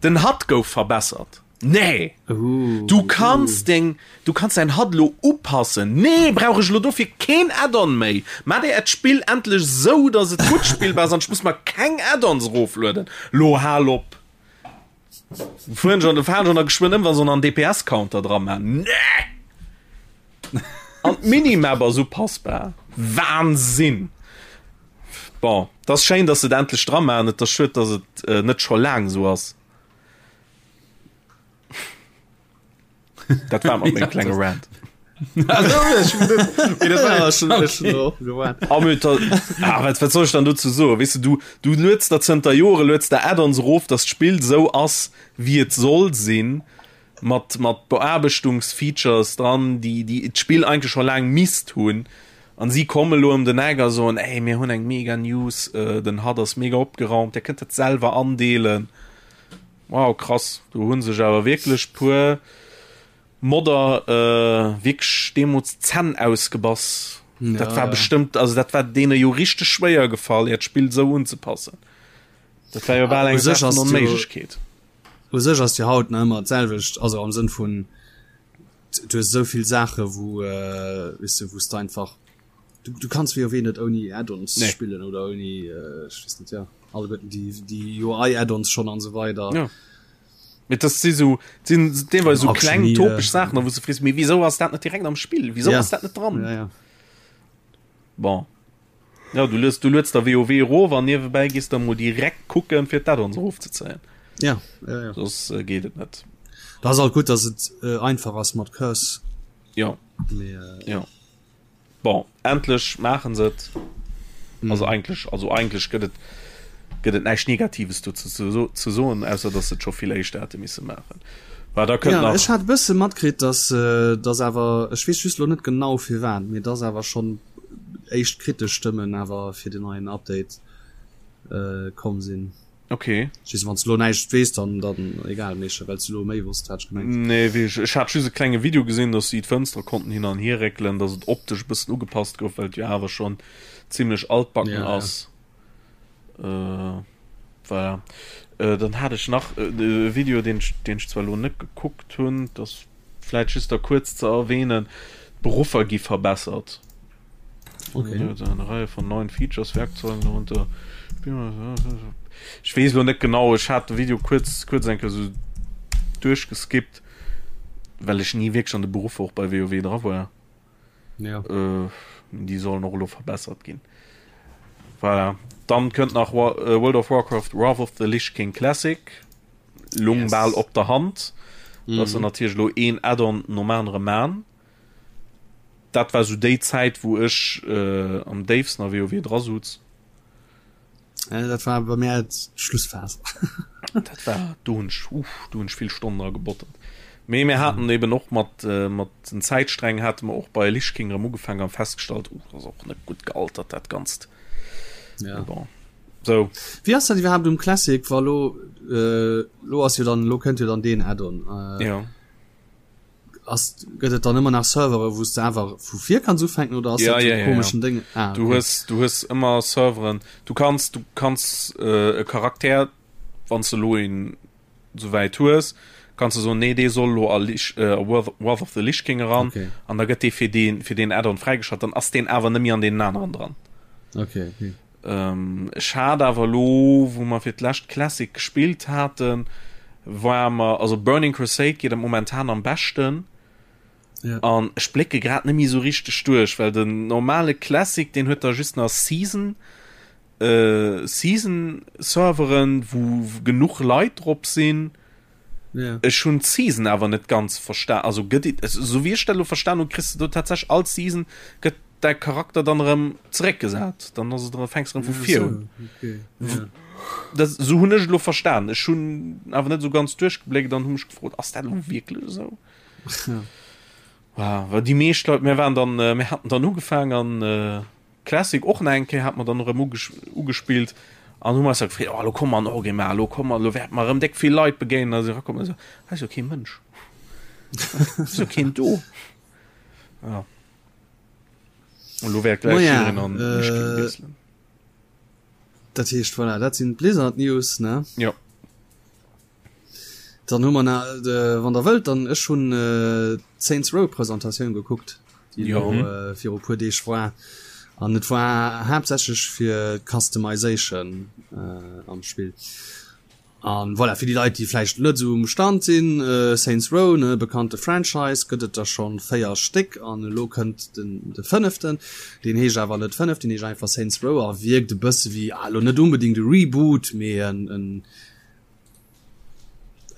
Den HUD gouf verbessert. Nee! Du kanns deng, du kanns däin HUD lo upassen. Nee, brauch ech lo dofir keen Add-on méi. Maacht dir äert Spill endlech sou, dass et gutt spillbar ass an ech muss mer keng Add-ons eroflueden. Lo hal op! Fueren schon, fahren schon da geschwënn ëm, wa se en DPS-Counter dra man. Nee! An d'Minimap ass upassbar. Wahnsinn! Bon, et ass schéin, dass se et endlech dra man. Et ass schued, dass et net scho laang sou ass. Dat war mat mengem klenge Rant. Ah, wat, wat soll ich dann dozou soen? Weess du, du, du lueds der zënter Jore lueds der Add-ons erof, dass d'Spill sou ass, wéi et soll sinn, mat, mat Beaarbechtungsfeatures dran, déi, déi d'Spill eigentlech scho laang misst hunn. An si komme lo ëm den Eck a soen, ey, mir hunn eng mega News, äh, den HUD ass mega opgeraumt, dir kënnt dat selwer andeelen. Wow krass, do hunn sech awer wierklech puer Modder wierklech deemols d'Zänn ausgebass. Ja, dat war ja. bestëmmt, also dat war deene jo richteg schwéier gefall, hiert Spill sou unzepassen. Dat war jo bal eng Saach vun Onméiglechkeet. U sech ass jo haut nach ëmmer d'selwecht, also am Sënn vun du hues esou vill Saache wou äh, weess du, wou s de einfach du, du kanns WoW net ouni Add-ons nee. spillen oder ouni äh, ech weess net ja alleguerten déi déi UI Add-ons schon an so weider. Ja. Mit das si so sinn deelweis so kleng topesch Saachen, wou du frees, mee wieso ass dat net direkt am Spill? Wieso ja. ass dat net dran? Ja, ja. Bon. Ja, du lues du lueds der WoW erof an niewebäi gees der mol direkt kucken fir d'Add-ons erofzezéien. Ja, ja, ja. Soss äh, geet et net. Da ass alt gutt, dass et äh, einfach ass mat Curse. Ja. Mee, äh, ja. Bon, endlech maachen se et. Mm. Also eigentlech, also eigentlech gëtt et gëtt et näischt Negatives do ze, ze, ze soen, ausser dass se et scho vill éischter hätte misse maachen. War da kënnt ja, nach. Ech hat e bësse matkritt, dass, äh, dass awer, ech weess just lo net genau firwat, mee dass awer schonn éischt kritesch Stëmmen awer fir den neien Update äh, komm sinn. Okay. Ech weess, wann s du lo näischt weess, dann, dann egal, mee well s du lo méi wosst, hat ech gemengt. Nee, wéi ech, ech hat just e klenge Video gesinn, dass si d'Fënstere konnten hin an hier réckelen, dass et optesch e bëssen ugepasst gouf, well et jo awer schonn zimlech altbacken Ja, ja. ass. Äh, voilà. Äh, dann hat ech nach e Video, deen ech, deen ech zwar lo net gekuckt hunn, dass vläit just da kuerz ze erwähnen, d'Beruffer gi verbessert. Okay. Eine Reihe von neuen Features, Werkzeugen darunter. Ech weess lo net genau, ech hat de Video kuerz kuerz eng Kéier sou duerchgeskippt, well ech ni wierklech an de Beruffer och bei WoW dra war. Ja. Äh, déi sollen och elo verbessert ginn. Voilà. Dann kënnt nach War, äh, World of Warcraft Wrath of the Lich King Classic. Lung Yes. bal op der Hand. Mm. Dass se natierlech lo een Add-on nom anere man. Dat war sou déi Zäit wou ech äh, am déifsten a WoW dra sutz. Äh, dat war bei mir d'Schlussphas. Dat war do hunn ech uff, do hunn ech vill Stonnen dra gebottert. Mee mir haten eben och mat äh, mat den Zäitsträngen hate mer och bei Lich King erëm ugefaangen an festgestallt, uh, dat ass och net gutt gealtert dat Ganzt. Ja. Mee bon. Sou. Wéi ass dat iwwerhaapt um Classic, wa lo äh, lo ass jo dann lo kënnt jo dann deen Add-on. Äh, Ja. Ass, gëtt et dann ëmmer nach Servere wou s de einfach vu vir kanns ufänken oder ass Ja, dat ja, so ja, komischen ja. Ding? Ah, Du okay. hues, du hues ëmmer Serveren. Du kanns, du kanns äh, e Charakter, wann s de lo een souwäit hues, kanns de soen, nee, dee soll lo a Lich, äh, a Wrath, Wrath of the Lich King eran. Okay. An da gëtt dee fir deen, fir deen Add-on fräigeschalt. Dann ass deen awer net méi an deenen aneren dran. Okay, okay. Ech hat awer elo, wou mer fir d'lescht Classic gespillt haten, war mer, also Burning Crusade geet am momentan am beschten. Ja. An ech blécke grad net méi esou richteg duerch, well den normale Classic, deen huet da just nach Season, äh, Season-Serveren, wou genuch Leit drop sinn. Ja. Ech hunn d'Season awer net ganz verstan. Also gëtt et, esou wéi ech dat elo verstan hunn, kriss de do tatsächlech all Season gëtt däi Charakter dann erëm zeréckgesat. Dann ass et erëm, fänks erëm vu vir un. Okay. Ja. Dat, esou hunn ech et elo verstan. Ech hunn awer net esou ganz duerchgebléckt an hu mech gefrot, ass dat elo wierklech esou? Ja. Wow, well déi meescht Leit, mir waren dann, mir haten dann ugefaang an Classic och nach eng Kéier, hat mer dann erëm ugespillt. An hu mer eis da gefreet, oh lo komme mer an Orgrimmar, lo komme mer, lo wäerte mer erëm déck vill Leit begéinen. A si erakommen a sou, hei ass jo kee Mënsch, hei ass jo keen do. Ja. An lo wäert gläich Maja, jiddereen an d'Mischkin äh, wiesselen. Dat heescht, voilà, dat sinn d'Blizzard News, ne? Jo. Dann hu mer na, äh, wann der wëllt, dann ech hunn äh, d'Saints Row Presentatioun gekuckt, déi Jo. elo äh, viru puer Deeg war. An et war haaptsächlech fir d'Customization äh, am Spill. An voilà, fir déi Leit, déi vläicht net esou um Stand sinn, äh, Saints Row, ne, bekannte Franchise, gëtt et der schonn 4 Stéck an elo kënnt den de fënneften. Deen heescht awer net fënnef, deen heescht einfach Saints Row a wierkt e bësse wéi, ah, elo net unbedingt e Reboot, mee en en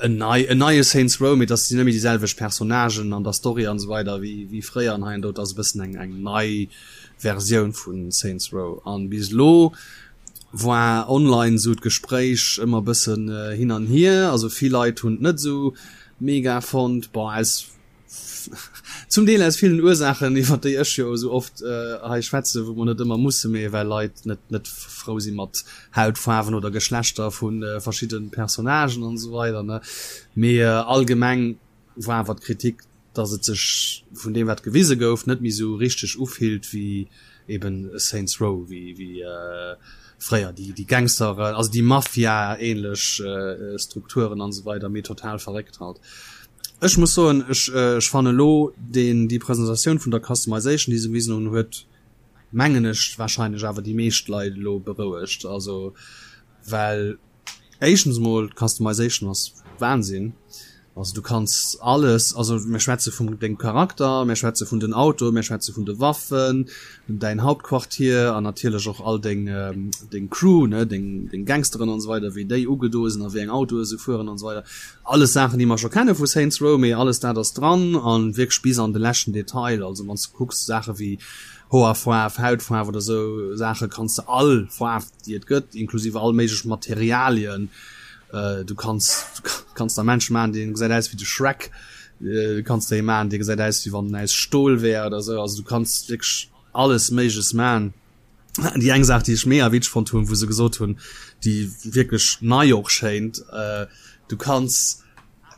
en nei en neie Saints Row, mee dass sinn net méi déi selwecht Personnagen an der Story an esou weider wéi wéi fréier an hei an do. Et ass e bëssen eng eng nei Versioun vu Saints Row an bis elo war online esou d'Gespréich ëmmer e bëssen hin an hier. Also vill Leit hunn et net esou mega fonnt, bon aus Zum Deel aus villen Ursaachen, iwwer déi ech jo esou oft hei schwätzen, wou mer net ëmmer musse, mee well Leit net net frou si mat Hautfaarwen oder Geschlechter vu verschidde Personnagen an esou weider, ne. Mee allgemeng war awer d'Kritik, datt et sech vun deem wat gewise gouf, net méi esou richteg ufillt wéi eben Saints Row, wéi wéi fréier déi déi Gangster, also déi Mafia-ähnlech Strukturen an esou weider, mee total verréckt halt. Ech muss soen, ech ech fannen elo deen déi Presentatioun vun der Customization déi se gewisen hunn huet mengen ech wahrscheinlech awer déi meescht Leit elo berouegt. Also well éischtens mol d'Customization ass Wahnsinn. Also du kanns alles, also mir schwätze vum dengem Charakter, mir schwätze vun den Autoe, mir schwätze vun de Waffen, däin Hauptquartier an natierlech och all deng deng Crew ne, deng deng Gangsteren an esou weider wéi déi ugedoe sinn a wéi eng Autoe se fueren an esou weider. Alles Saachen déi mer scho kenne vu Saints Row, mee alles dat ass dran an wierklech bis an de leschten Detail. Also wann s de kucks Saache wéi Hoerfaarf, Hautfaarf oder esou Saache kanns de all Faarf déi et gëtt, inklusive all méiglech Materialien, du kanns du kanns der Menschen maachen dee gesäit aus wéi de Shrek, du kanns der ee maachen dee gesäit aus wéi wann en aus Stol wär oder esou. Also du kanns wierklech alles méigleches maachen. Déi eng Saach déi ech mega witzeg fonnt hunn, wou se gesot hunn, déi wierklech nei och schéint, du kanns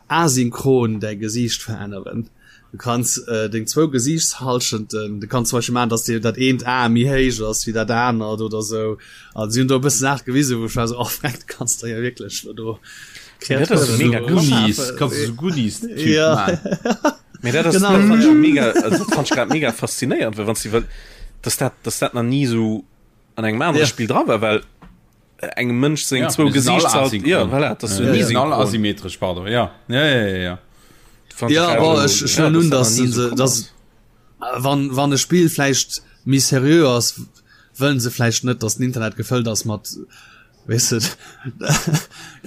asynchron däi Gesiicht veränneren. Du kanns deng zwou Gesiichtshallschenten, du kanns zum Beispill maachen, dass dir dat eent Ae méi héich ass wéi dat anert oder sou. An si hunn do e bësse Saache gewisen, wou ech war sou, oh freck, du kanns der jo wierklech lo do Dat ass Kreaturen mega do krass. Goonies, erschafen. kanns du sou Goonies-Typ Ja. maachen. Mee dat ass Genau. dat fand ech mega also dat fand ech grad mega faszinéierend, well wann s du well dass dat dass dat nach ni sou an engem anere Ja. Spill dra war, well engem Mënsch seng Ja, zwou mir sinn all Gesiichtshal ja asynchron. voilà, dat ass jo Ja, ni mir sinn all synchron. asymmetresch, pardon. Ja, ja, ja, ja, ja. Fand ech Ja, grad bon, elo- ech, ech ja, huelen un, dass dass dat nach ni se, sou komm dass ass. wann, wann e Spill vläicht méi seriö ass, wëllen se vläicht net, dass den Internet gefëllt ass mat Weess de,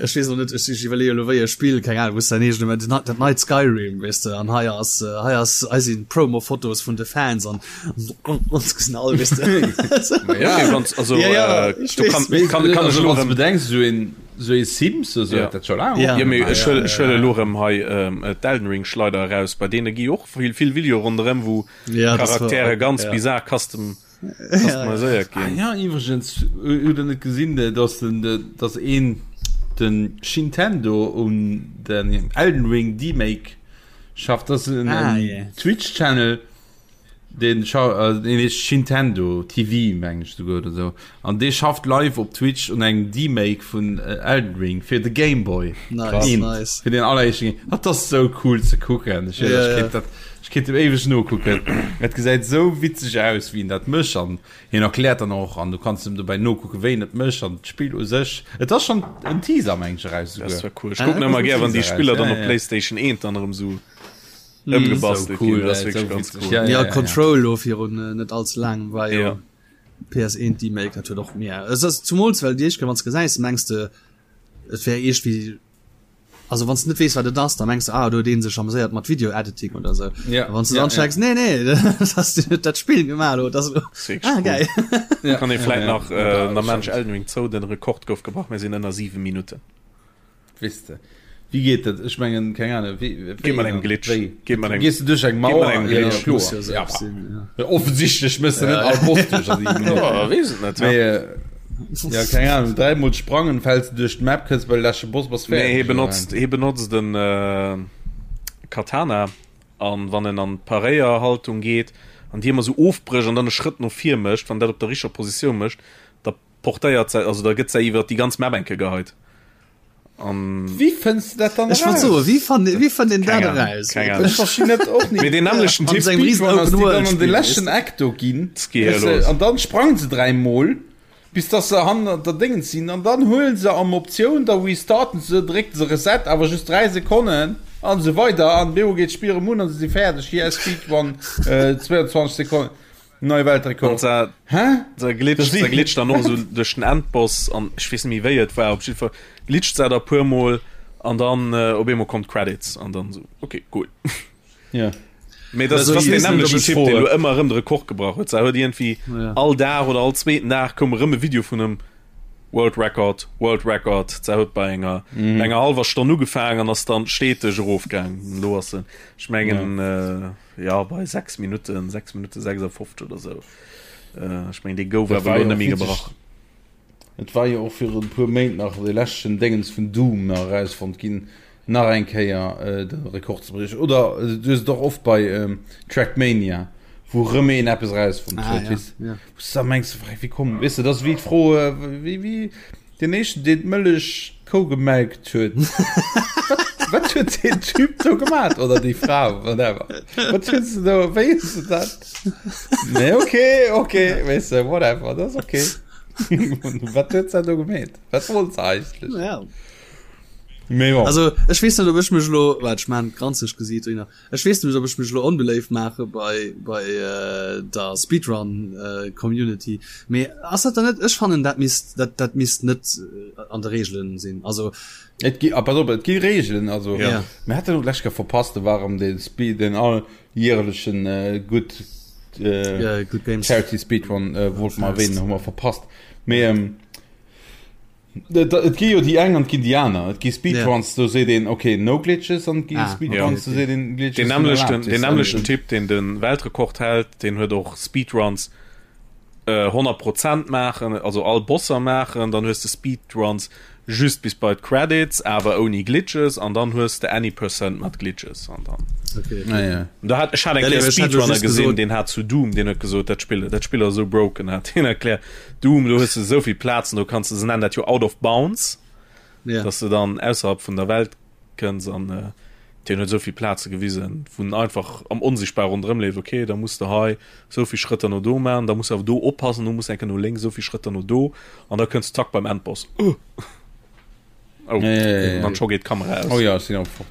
ech weess och net, ech ech iwwerleeë elo wéi e Spill, keng Ahnung, wou s dein eegene, mä dat dat neit Skyrim, weess de, an hei ass, hei ass, hei sinn d'Promo-Fotos vun de Fans an ons gesinn all, weess de. Ma ja. Okay, wanns, also, Ja, ja, äh, ech do weess. kann, kann, kann ech Also, elo wann du erëm bedenks, esou een, esou ee Sims oder sou Ja. huet dat scho laang Ja. Jo, mee opgemaach. ech huel, ech huel elo erëm hei ähm, d'Elden Ring Schleider eraus, bei deene gi och vill, vill Videoe ronderëm, wou Ja, das war, Charaktere ganz ja. bizar custom Customiséiert Ah ginn. ja, iwwregens, hutt der net gesinn, dass den, dass een den Shintendo un den Elden Ring Demake schafft? Das ass en, Ah, en yeah. Twitch-Channel, den scha den heescht Shintendo TV, meng ech souguer oder sou. An dee schafft live op Twitch un engem Demake vun Elden Ring fir de Game Boy. Nice, Eent, nice. Fir den alleréischten Game. Dat ass sou cool ze kucken. Ech, Ja, ech ja. kéint dat Ech kéint em éiweg nokucken. Et gesäit esou witzeg aus, wéi en dat mécht an hien erkläert dann och an du kanns em dobäi nokucken, wéi en et mécht an d'Spill u sech. Et ass schonn en Teaser, meng ech, eraus Dat esouguer. wär cool. Ech kucken ëmmer gär, wann déi Teaser Spiller eraus, dann ja, op ja. PlayStation 1 dann erëm esou Sou ëmgebastelt cool, ginn. Dat ass ey, wierklech sou ganz witzeg. cool. Ja, Ja, ja, ja. Control lo virun äh, net allze laangem war jo Ja. PS1 Remake, dat huet och mir. Es ass zumools well déi éischt Kéier wann s gesäis, mengs de et wär iergwéi Also wann s de net weess wat et ass, da mengs de ah do huet een sech ameséiert mat Video Editing oder sou. Ja, A wann s de ja, dann checks, ja. nee nee, dat ass den huet dat Spill gemaach elo, dat ass elo Das ist wirklich ah cool. geil. Ja, Kann ee ja, vläit ja. nach Ja, äh, das Mensch stimmt. Elden Ring zou, den Rekord gouf gebrach, mir sinn ënner 7 Minutten. Weess de, wéi geet dat? Ech mengen, keng Ahnung, wéi, Geet wéi mat engem dann? Glitch. Wéi? Geet mat engem Gees du duerch eng geet mat Mauer? engem Ja, Glitch. kloer. Muss jo sou Ja, sinn, ja. offensichtlech mëss de net all Boss duerch a 7 Minutten. Ja, weess et net, ja. Mee, äh. Ja, keng Ahnung, dräimol sprangen, fäls du duerch d'Map, kënns bei de leschte Boss, bass Nee, fäerdeg. hie benotzt, hie benotzt den äh, Katana an wann en an d'Paréierhaltung geet an déi ëmmer sou ofbrécht an dann e Schrëtt no vir mécht, wann dat op der richteger Positioun mécht, da portéiert se, also da gëtt se iwwer déi ganz Map enke geheit. An Wéi fënns de dat dann Ech wollt eraus? soen, wéi fannt wéi fënnt een Keng dat Ahnung, eraus? keng Ahnung. Ech verstinn dat och Mee net. deen nämmlechten An Typ sengem riesen Speedrun ass, Open déi World dann an de Spill, leschten weess de? Eck do ginn, Geet hier weess de, los. an dann sprangen se dräimol, bis dass se hannert der Déngens sinn, an dann huelen se am Optioun, da restarten se, drécken se Reset, awer just 3 Sekonnen, an esou weider, an bemol geet d'Spill erëm un an se si fäerdeg, yes, Speedrun, 22 Sekonnen. Neie Weltrekord. An Hä? Se glitscht, se glitscht dann och esou duerch den Endboss an ech weess net méi wéi et war, op jiddwer Fall glitscht se da puer mol an dann äh, op eemol kommt d'Credits an dann esou okay, cool. Ja. Mee das, Also, das ich den weess net, nämlechen ob ech Typ, froe. deen elo ëmmer erëm de Rekord gebrach huet. Se huet iergendwéi Ja. all Dag oder all zweeten Dag koum erëm e Video vun em World Record, World Record. Se huet bei enger, mm. enger halwer Stonn ugefaangen an ass dann steteg erofgaangen. Elo ass se, ech mengen, ja. äh, Jo, bei 6 Minutten, 6 Minutte 56 oder sou. Ech mengen, dee gouf Dat awer war elo jo net och méi witzeg. gebrach. Et war jo och virun e puer Méint nach dee leschten Déngens vun Doom nach erausfonnt ginn, nach eng Kéier de Rekord ze briechen. Oder du hues et och oft bei Trackmania, wou erëm een eppes erausfonnt Ah, huet, ja, weess, ja. wou s de da mengs, wéi komm, weess de, dat ass wéi d'Fro, wéi, wéi Deen éischten deen d'Mëllech d'Kou gemelkt huet. Wat, wat huet deen Typ do gemat? Oder déi Fra, whatever. Wat huet se do, wéi huet se dat? Nee, okay, okay, weess de, whatever, dat ass okay. Wat huet se do gemeet? Wat wollt se eigentlech? Ja. Mee bon. Also ech weess net ob ech mech elo, waart ech maan granzeg Gesiit dohinner. Ech weess net ob ech mech elo onbeléift maache bei bei der Speedrun Community, mee ass dat dann net, ech fannen dat misst dat dat misst net an de Reegelen sinn, also. Et gi, ah pass op, et gi Reegelen, also Ja. mir haten elo d'lescht Kéier verpasst, do war erëm dee Speed, deen alljährlechen Good Good Games Charity Speedrun wollte mer erwähnen, hu mer verpasst, mee. Et gi jo déi eng an et ginn déi aner. Et gi Speedruns, do seet een ok, no glitches, an et gi Speedruns, do seet een Glitches Den sinn nämmlechten, erlaabt. den nämmlechten Typ, deen de Weltrekord hält, deen huet och Speedruns 100 Prozent maachen, also all Bosser maachen, dann hues de Speedruns just bis bei d'Credits, awer ouni Glitches, an dann hues de Any Percent mat Glitches an dann. Okay. Ah, ja. Da hat ech hat eng Ja, nee, Kéier ech hat Speedrunner just gesinn, gesot- deen hat zu Doom, deen huet gesot, dat Spill, dat Spill ass esou broken, hat hien erkläert. Doom, do hues de esou vill Plazen, do kanns de, se nennen dat jo out of bounds, Ja. dass de dann ausserhalb vun der Welt kënns an äh, deen huet esou vill Plaze gewisen, wou en einfach am Onsichtbar ronderëm leeft, okay, da muss de hei esou vill Schrëtter no do maachen, da muss de awer do oppassen, do muss de eng Kéier no lénks esou vill Schrëtter no do an da kënns de zack beim Endboss. Uh. Oh, Ja, ja, ja, ja. Dann scho geet d'Kamera aus. Oh ja, ech sinn och fort.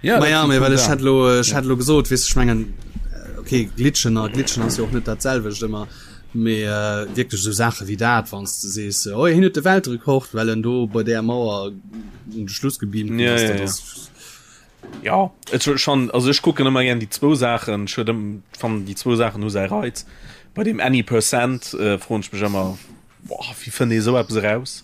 Ja, Ma ja, dat mee sinn well cool ech hätt Saachen. lo, ech hätt lo gesot, weess ech mengen, okay, glitchen a glitchen ass jo och net dat selwecht ëmmer, mee äh, wierklech esou Saache wéi dat, wann s de sees, oh hien huet de Weltrekord, well en do bei där Mauer un de Schluss gebeamt ginn Ja, ass, ja, dat ja. ass Ja, et ass schon, also ech kucken ëmmer gern déi zwou Saachen, ech huet ëm, fannen déi zwou Saachen hu säi Reiz. Bei deem Any Percent äh, froen ech mech ëmmer, boah, wéi fënnt ee sou eppes eraus?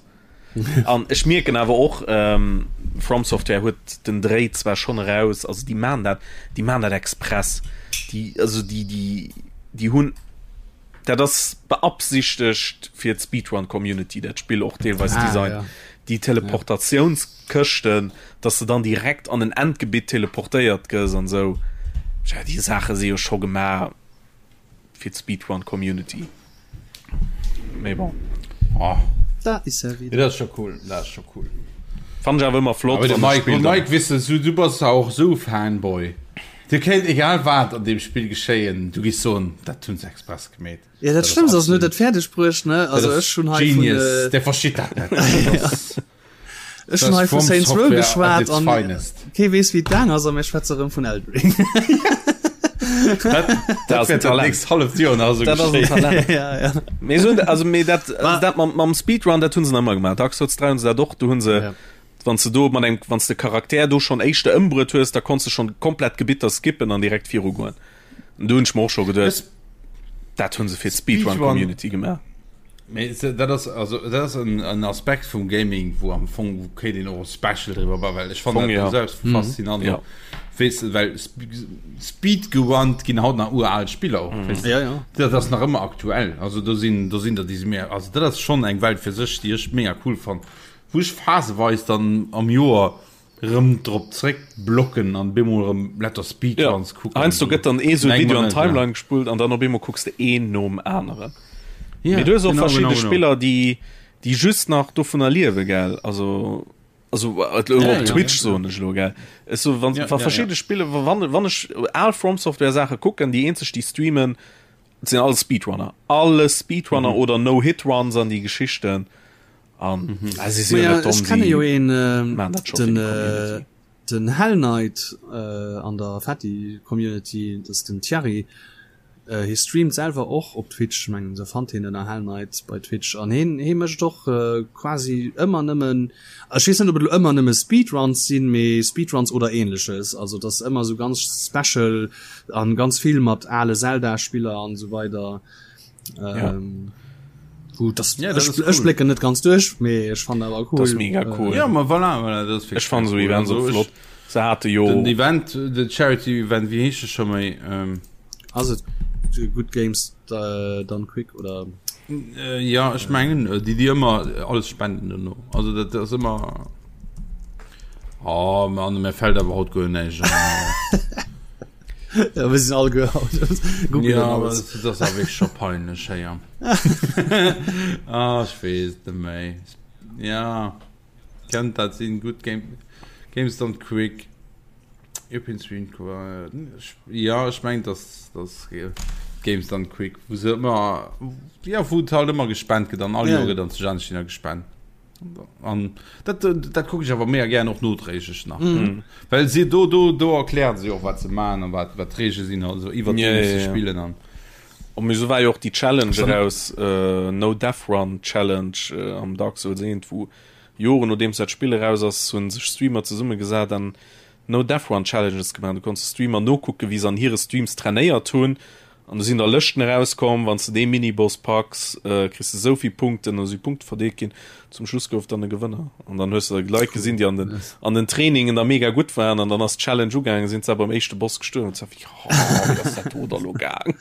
An ech mierken awer och, ähm, From Software huet den Dréi zwar schonn eraus, also déi maan dat, déi maan dat express. Déi, also déi, déi, déi hunn, dat ass beabsichtegt fir d'Speedrun-Community, dat Spill och deelweis Ah, designt. ja. Déi Teleportatiounskëschten, dass de dann direkt an en Endgebitt teleportéiert gëss an esou. Tja, déi Saache si jo scho gemaach. fir d'Speedrun Community. Mee bon. Oh. Da is er wieder. Dat ass scho cool, dat ass scho cool. Fand ech awer ëmmer flott. Aber de wann Mike, Spill dann- Mike wisse du, du bass auch so Fanboy. Dir kéint egal wat an dem Spill geschéien, du giss soen, dat hunn se express gemeet. Ja, dat Schlëmmst ass, en huet dat fäerdeg bruecht, ne? Also ech hunn hei vun, Genius, äh, der versteet dat net. Dat ass- Ech hun hei vu Saints Row geschwat an kee weess wéi et gaang ass a mir schwätze rëm vun Elden Ring. Dat, dat ass en Talent. Halleft Joer nach esou Dat ass en geschéien. Talent. Ja, ja. Mee so, also, mee dat, also dat mam, mam Speedrun, dat hunn se nach ëmmer gemaach. Dark Souls 3 hunn se dat och, do hunn se, Ja. wann s de do mat engem, wann s de Charakter do schonn éischter ëmbruet hues, da konns de schonn komplett Gebitter skippen an direkt virugoen. An do hunn ech mer och scho geduet, dat hunn se fir d'Speedrun-Community gemaach. Mee dat ass also dat ass en, en Aspekt vum Gaming, wou am Fong wou kéint een och e Special driwwer bauen, well ech fannen dat ja. selbst mm. faszinant. Ja. Weess du, well Speed gewannt ginn haut nach ural Spiller och. Mm. Ja, ja. Dat ass nach ëmmer aktuell. Also do sinn do sinn der déi si mehr also dat ass schon eng Welt fir sech, déi ech mega cool fann. Wou ech phaseweis dann am Joer rëm drop zréck blocken an bemol rëm lauter Speedruns ja. kucken. Heiansdo gëtt dann ee sou Video an Timeline gespullt an dann op eemol kucks de een nom aneren. Ja, Mee du hues och genau, verschidde genau, genau. Spiller, déi déi just nach dovunner liewe gell also also äh, ja, op Twitch ja, soen ech lo gell. Es so wann ja, wa ja, verschiedene ja. Spille wann wann ech al From Software Sache kucken, déi eenzeg déi streamen sinn all Speedrunner. Alle Speedrunner mhm. oder No-Hit-Runs an déi Geschichten. An mhm. ah, si sinn ja, ech kenne jo een äh, den, äh, den Hell Knight äh, an der Fatty Community, das den Thierry. Äh, hie streamt selwer och op Twitch, mengen se fannt hien ënner Hell Knight bei Twitch an hien hie mécht och äh, quasi ëmmer nëmmen ech weess net ob et elo ëmmer nëmme Speedruns sinn, mee Speedruns oder ähnleches, also dass ëmmer sou ganz special an ganz vill mat ale Zelda Spiller an esou weider. Ja. Ähm, gut, das, ja, das ich, cool. blicke net ganz durch mee ech fand awer cool. Das mega äh, cool. Äh, ja, ma voilà, voilà, das ech fand so Event so flott. Se hatte jo den Event den Charity Event wie heescht schon méi ähm, also good Games äh, dann quick oder äh, ja ich mengen äh, die die immer alles spenden no also dat das immer oh man mir fällt aber haut go nicht Ja, wir sind all gehaut. Ja, aber das, das ist wirklich schon peinlich, ja. ah, ich weiß nicht mehr. Ja, kennt das sind gut Game, Games Done Quick. European Stream, ja, ich meine, das, das Games Done Quick, wo sie immer, ja, wo halt immer gespendet wird, dann alle ja. Jahre dann zu China gespendet. An dat, dat kucke ech awer mega gären och nodréiglech nach. Mm. Well si do do do erklären se och wat se man an wat wat d'Reegele sinn also iwwer yeah, yeah, yeah. spillen an. Und mir so war jo och déi Challenge eraus äh, No Death Run Challenge äh, am Dark Souls 1 wou Joren nodeems dat Spill eraus ass hunn sech Streamer zesummegesat an No Death Run Challenges gemaach. Du konns de Streamer nokucken wéi se an hire Streams trainéiert hunn An do sinn da Lëschten erauskomm, wann s de dee Miniboss packs, kriss de esou vill Punkten, an esou si Punkte verdeelt ginn. Zum Schluss gouf dann e Gewënner. An dann hues de da Leit gesinn, déi an den, an den Trainingen da mega gutt waren, an dann ass d'Challenge ugaangen, sinn se beim éischte Boss gestuerwen. An wéi, oh, wéi ass dat do da lo gaang?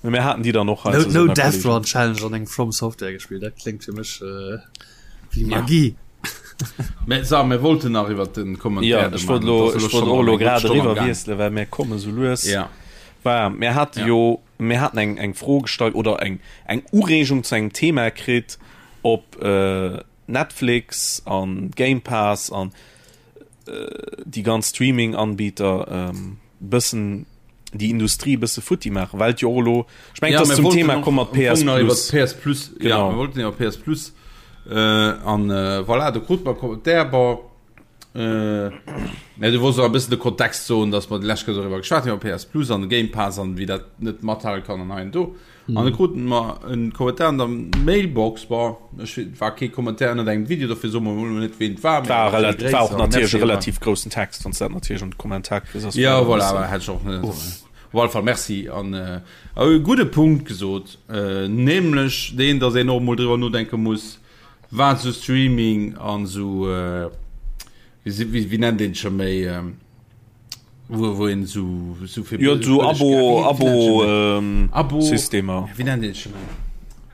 Mee mir haten déi dann och hei No, no Death Run Challenge an engem From Software gespielt, dat kléngt fir mech äh, wéi Magie. Mä so, mir wollten nach iwwer den Kommentar. Ja, ech wollt lo, ech wollt och lo grad eriwwer wiesselen, well mir komme sou lues. Ja. War, mir hate ja. jo, mir haten eng, eng Fro gestallt oder eng, eng Ureegung zu engem Thema kritt, ob äh, Netflix an Game Pass an äh, déi ganz Streaming-Anbieter ähm, bëssen déi Industrie bësse futti maachen, well et jo och elo, ech mengen, ja, et ass zum Thema komm mat PS Plus. PS Plus, genau. Ja, mir wollten iwwer PS Plus äh, an äh, voilà, do krut mer Kommentar, bon, äh, ja, du wollts och e bëssen de Kontext soen, dass mer déi lescht Kéier doriwwer geschwat hunn, iwwer PS Plus an de Game Pass an wéi dat net mathale kann an hei an do. An da kruten mer en Kommentar an der Mailbox, bon, ech war kee Kommentar ënnert engem Video, dofir soe mer mol net ween et war, mee War relativ, war och natierlech e relativ groussen Text, wann s dat natierlech an de Kommentar kriss, ass Ja, voilà, awer hätt ech och net. Op alle Fall Merci an e gudde Punkt gesot, nämlech deen, datt een och emol driwwer nodenke muss, wat esou Streaming an esou, wéi wéi nennt een et scho méi, Wo, wo een so, so fir Jo, so Abo, Abo, ähm, Abo Systemer. Wie nennt een schon méi?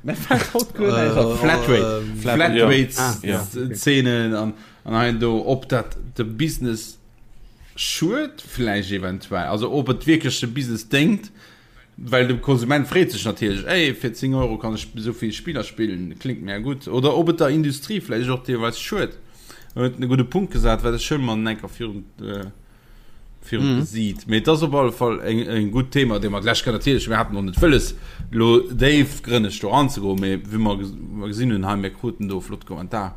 Mir fällt haut guer näischt an. Flatrate. Flatrate Ah, ja. Szenen an, an hei an do, ob dat de Business schued vläicht eventuell, also ob et wierklech de Business déngt, well de Konsument freet sech natierlech, ey, fir 10 Euro kann ech esou vill Spiller spillen, klingt mir gutt, oder ob et der Industrie vläicht och deelweis schued. En huet e gudde Punkt gesat, wat ech schonn mol enker virun äh, virun mm. Gesiit. Mee dat ass op alle Fall eng, eng gutt Thema, dee mer d'lescht Kéier natierlech, mir haten och net wëlles, lo déifgrënneg do eranzegoen, mee wéi mer ges- gesinn hunn hei, mir kruten do e flott Kommentar,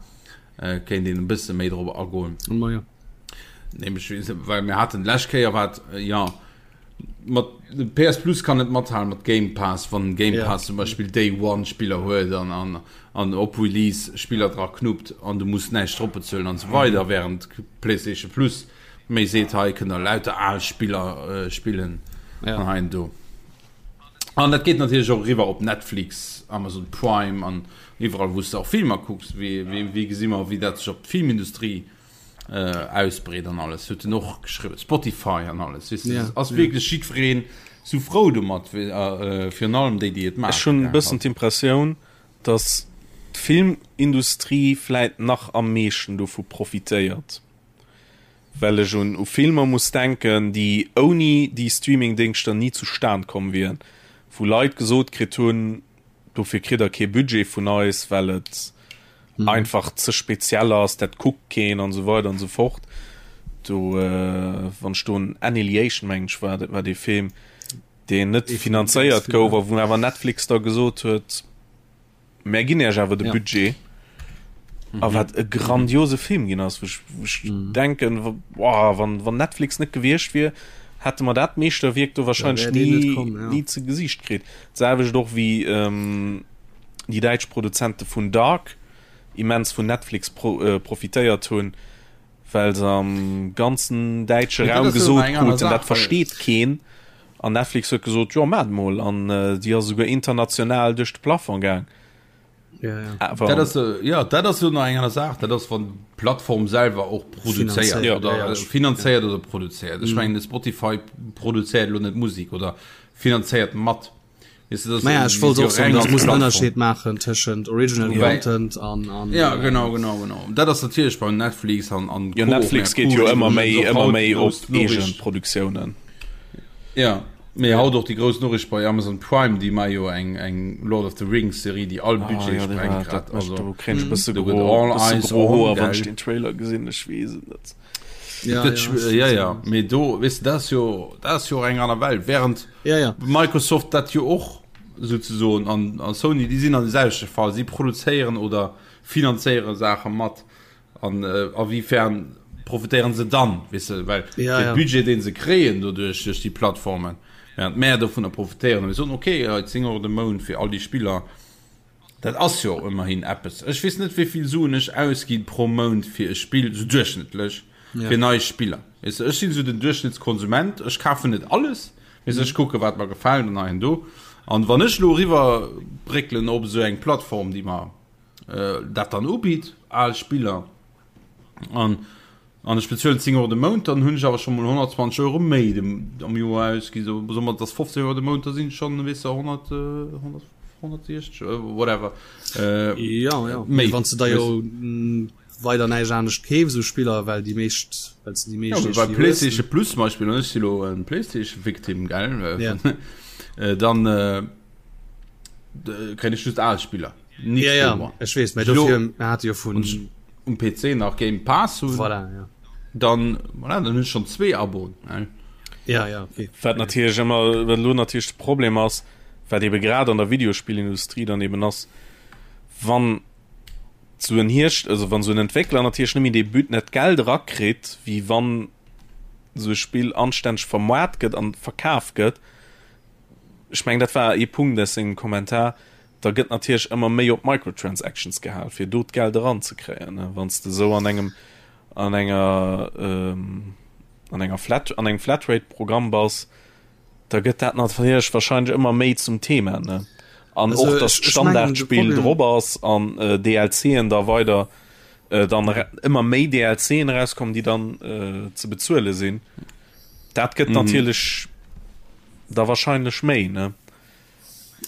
äh, kéint een e bësse méi drop agoen. Ma ja. Nämlech, well mir haten d'lescht Kéier wat, äh, ja, mat PS Plus kann net mathalen mat Game Pass, wann Game yeah. Pass zum Beispiel Day One Spiller huet an, an, an op Release Spiller dra knuppt an du muss näischt drop bezuelen an so weider, mhm. während PlayStation Plus méi seet hei kënnt der lauter al Spiller äh, spillen ja. an hein do. An dat geet natierlech och eriwwer op Netflix, Amazon Prime an iwwerall wou s de och Filmer kucks. Wéi, wéi, wéi gesi mer, wéi dat sech op d'Filmindustrie äh, ausbreet an alles. Huet en och geschriwwen. Spotify an alles. Weess de, Ja, ass ja. wierklech jiddwereen sou frou domat, wéi, äh, virun allem déi, déi et Ech maachen, hunn e gell. bëssen d'Impressioun, datt d'Filmindustrie vläit nach am meeschten dovu profitéiert. Well ech un u Filmer muss denken, déi ouni déi Streamingdéngschter ni zustan komm wieren, wou Leit gesot kritt hunn, dofir kritt der kee Budget vun eis, well et einfach ze speziell ass, dat kuckt keen an esou weider an esou fort. Do, wann ech do un Annihilation, mengen ech war dat, war dee Film, deen net finanzéiert gouf a wou awer Netflix da gesot huet, Mär ginn Iech awer de ja. Budget. Mhm. A wat e grandiose Film ginn ass, wou ech, wou ech mhm. denken, boah, wann, wann Netflix net gewiescht wier, hätte mer dat Meeschterwierk do wahrscheinlich ja, nie, kommen, ja. nie ze Gesicht kritt. Selwecht och wie ähm, déi däitsch Produzente vun Dark immens vun Netflix pro, äh, profitéiert hunn. Well se am ganzen däitsche Raum gesot kruten, dat versteet keen. An Netflix huet gesot, jo maacht mol. An déi ass esouguer international duerch de Plafond gaang. Awer dat ass, jo, dat ass jo nach eng aner Saach. Dat ass, wann d'Plattform selwer och produzéiert oder finanzéiert oder produzéiert. Ech mengen, de Spotify produzéiert elo net Musek oder finanzéiert mat. Weißt du, das naja, ich wollte auch sagen, das muss einen Unterschied machen zwischen Original ja. Content an, an ja äh, genau genau genau dat ass natierlech bei Netflix an an ja, Netflix geht jo ëmmer méi ëmmer méi op eegen Produktiounen ja Mee haut och déi grouss Noriicht bei Amazon Prime, déi ma jo eng eng Lord of the Rings Serie, déi all ah, Budget ah, ja, sprengt grad. Also do kréint ech bësse gro all eyes on wann ech den Trailer gesinn, ech weess et net. Ja, dat, ja, ja, ja. Mee do weess de, dat ass jo dat ass jo och eng aner Welt, während Ja, ja. Microsoft dat jo och souzesoen an a Sony, déi sinn an de selwechte Fall, si produzéieren oder finanzéiere Saache mat an äh, a wiefern profitéieren se dann, weess de, well Ja, de ja. Budget deen se kréien doduerch duerch déi Plattformen, während mär dovunner profitéieren a mir soen, okay, hei 10 Euro de Mount fir all déi Spiller, Dat ass jo ëmmerhin eppes. Ech weess net, wéi vill Suen ech ausgi pro Mount fir e Spill, sou duerchschnëttlech, fir nei Spiller. Weess de, ech sinn esou den Duerchschnëttskonsument, ech kafen net alles, weess de, ech kucke wat mer gefält an hei an do. An wann ech elo eriwwer bréckelen op esou eng Plattform, déi mer dat dann ubitt, al Spiller, an An ech bezuelen 10 Euro de Mount, dann hunn ech awer scho mol 120 Euro méi am Joer ausgi. So, soe mer, et ass 15 Euro de Mount, da sinn et schonn, weess de, 100, 100, 160, whatever, Ja, ja. méi. Wann s de da jo weider näischt anescht keefs u Spiller, well déi meescht, well s de déi Ja, meescht bei iergendwéi hues. PlayStation Plus zum Beispill, an ech si lo en PlayStation-Victim, gell, Ja. dann kréien ech just al Spiller. Nix ja, ja. Ech weess, mä dofir mir hate jo vun um PC nach Game Pass hunn. Voilà, ja. Dann, voilà, dann hunn ech schon zwee Aboen. Ja, ja, okay. Wat natierlech ëmmer, wat elo natierlech de Problem ass, wat ebe grad an der Videospillindustrie dann eben ass, wann sou en Hierscht, also wann sou en Entwéckler natierlech net méi dee But, net d'Geld erakritt, wéi wann sou e Spill anstänneg vermaart gëtt an verkaf gëtt, ech mengen dat war ee Punkt aus sengem Kommentar, da gëtt natierlech ëmmer méi op Microtransactions gehal, fir do d'Geld eranzekréien. Wann s de esou an engem an enger an enger Flat an engem Flatrate-Programm bass, da gëtt dat natierlech wahrscheinlech ëmmer méi zum Thema, ne? An Also och, dass ech, ech mengen de d'Standardspill Problem, drop ass an DLCen da weider dann ëmmer méi DLCen erauskommen, déi dann ze bezuele sinn. Dat gëtt natierlech da wahrscheinlech méi, ne?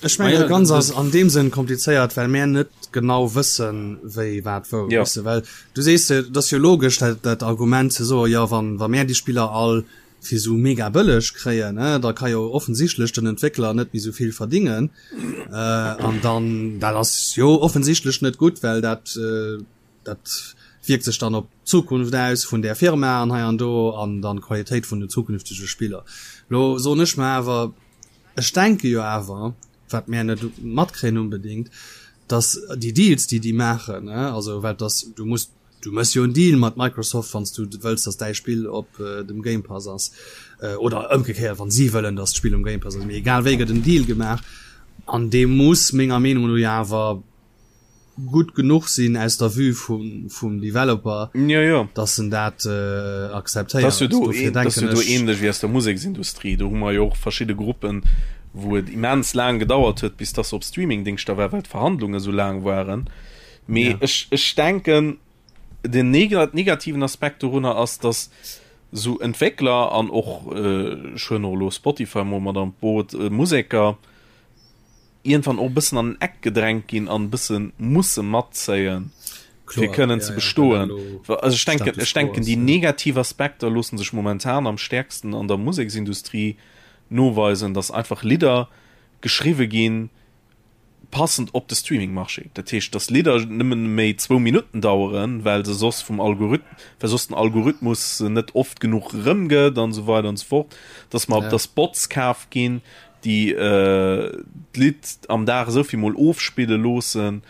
Ech mengen dat Ganzt ass an deem Sënn komplizéiert, well mär net genau wëssen, wéi wat wou. Ja. Weess de, well du sees jo, et ass jo logesch dat dat Argument ze soen, jo wann wa mär déi Spiller all fir esou mega bëlleg kréien, ne, da ka jo offensichtlech den Entwéckler net méi esou vill verdingen. An dann, dat ass jo offensichtlech net gutt, well dat dat wierkt sech dann op d'Zukunft aus vun där Firma an hei an do an dann d'Qualitéit vun den zukünftege Spiller. Lo soen ech mer awer, Ech denke jo awer, wat mär net matkréien unbedéngt, datt déi Deals, déi déi maachen, also well dass du muss, du méchs jo en Deal mat Microsoft, wann s du wëlls, datt däi Spill op dem Game Pass ass, oder ëmgekéiert, wann si wëllen, datt d'Spill um Game Pass ass, mee egal wéi gëtt en Deal gemaach an dee muss menger Meenung no jo awer gutt genuch sinn aus der Vue vum, vum Developer, ja, ja. dass en dat äh, akzeptéiert. Das jo do, Dofir das denken jo do ech, ähnlech wéi aus der Museksindustrie. Do hu mer jo och verschidde Gruppen. Wou et immens laang gedauert huet, bis dass se op Streamingdingschter war, well d'Verhandlunge sou laang waren. Mee ja. ech, ech denken, den negativen Aspekt dorunner ass, dass sou Entwéckler an och äh, ech huelen och elo Spotify mol mat an d'Boot, äh, Museker iergendwann och e bëssen an den Eck gedrängt ginn an e bësse musse matzéien, fir kënnen ze bestoen. Also ech denken, ech denken déi negativ Aspekter loosse sech momentan am stäerksten an der Museksindustrie noweisen, dass einfach Lidder geschriwwe ginn, passend op de Streaming-Marché. Dat heescht, dass Lidder nëmmen méi zwou Minutten daueren, well se soss vum Algorith well soss den Algorithmus se net oft genuch erëmgëtt an esou weider an esou fort. Dass mer, ja. dass Bots kaf ginn, déi äh, d'Lidd am Dag esou vill mol ofspille loossen,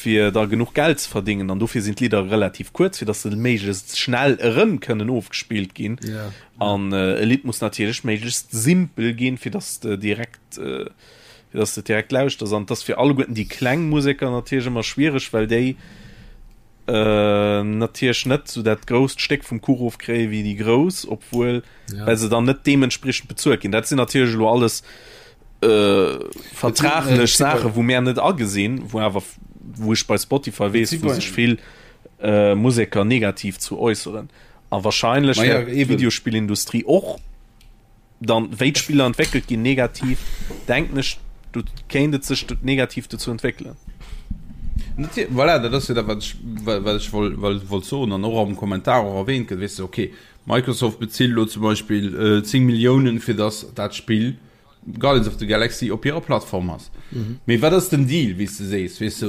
fir da genuch Geld ze verdingen an dofir sinn d'Lidder relativ kuerz, fir dass se méiglechst schnell erëm kënnen ofgespillt ginn. Ja. An äh, e Lidd muss natierlech méiglechst simpel ginn, fir dass de direkt äh, fir dass de direkt lauschters. An dass fir alleguerten déi kleng Museker natierlech ëmmer schwiereg, well déi äh, natierlech net sou dat grousst Stéck vum Kuch ofkréie wéi déi grouss, obwuel ja. well se dann net deementspriechend bezuelt ginn. Dat sinn natierlech elo alles äh, vertraglech Saache wou mär net agesinn, wou awer wou ech bei Spotify weess, wou sech vill äh, Museker negativ zu äusseren. A wahrscheinlech ja, Videospillindustrie och dann wéi d'Spiller entwéckelt ginn negativ, denken ech, do kéint et sech negativ dozou entwéckelen. Voilà, dat ass jo dat, wat ech, wat ech wollt soen an och am Kommentar och erwähnt gëtt, weess de, okay, Microsoft bezilt elo zum Beispill 10 Milliounen, fir datt dat Spill Guardians of the Galaxy op hirer Plattform ass. Mee wat ass den Deal, wéi s de sees, weess de,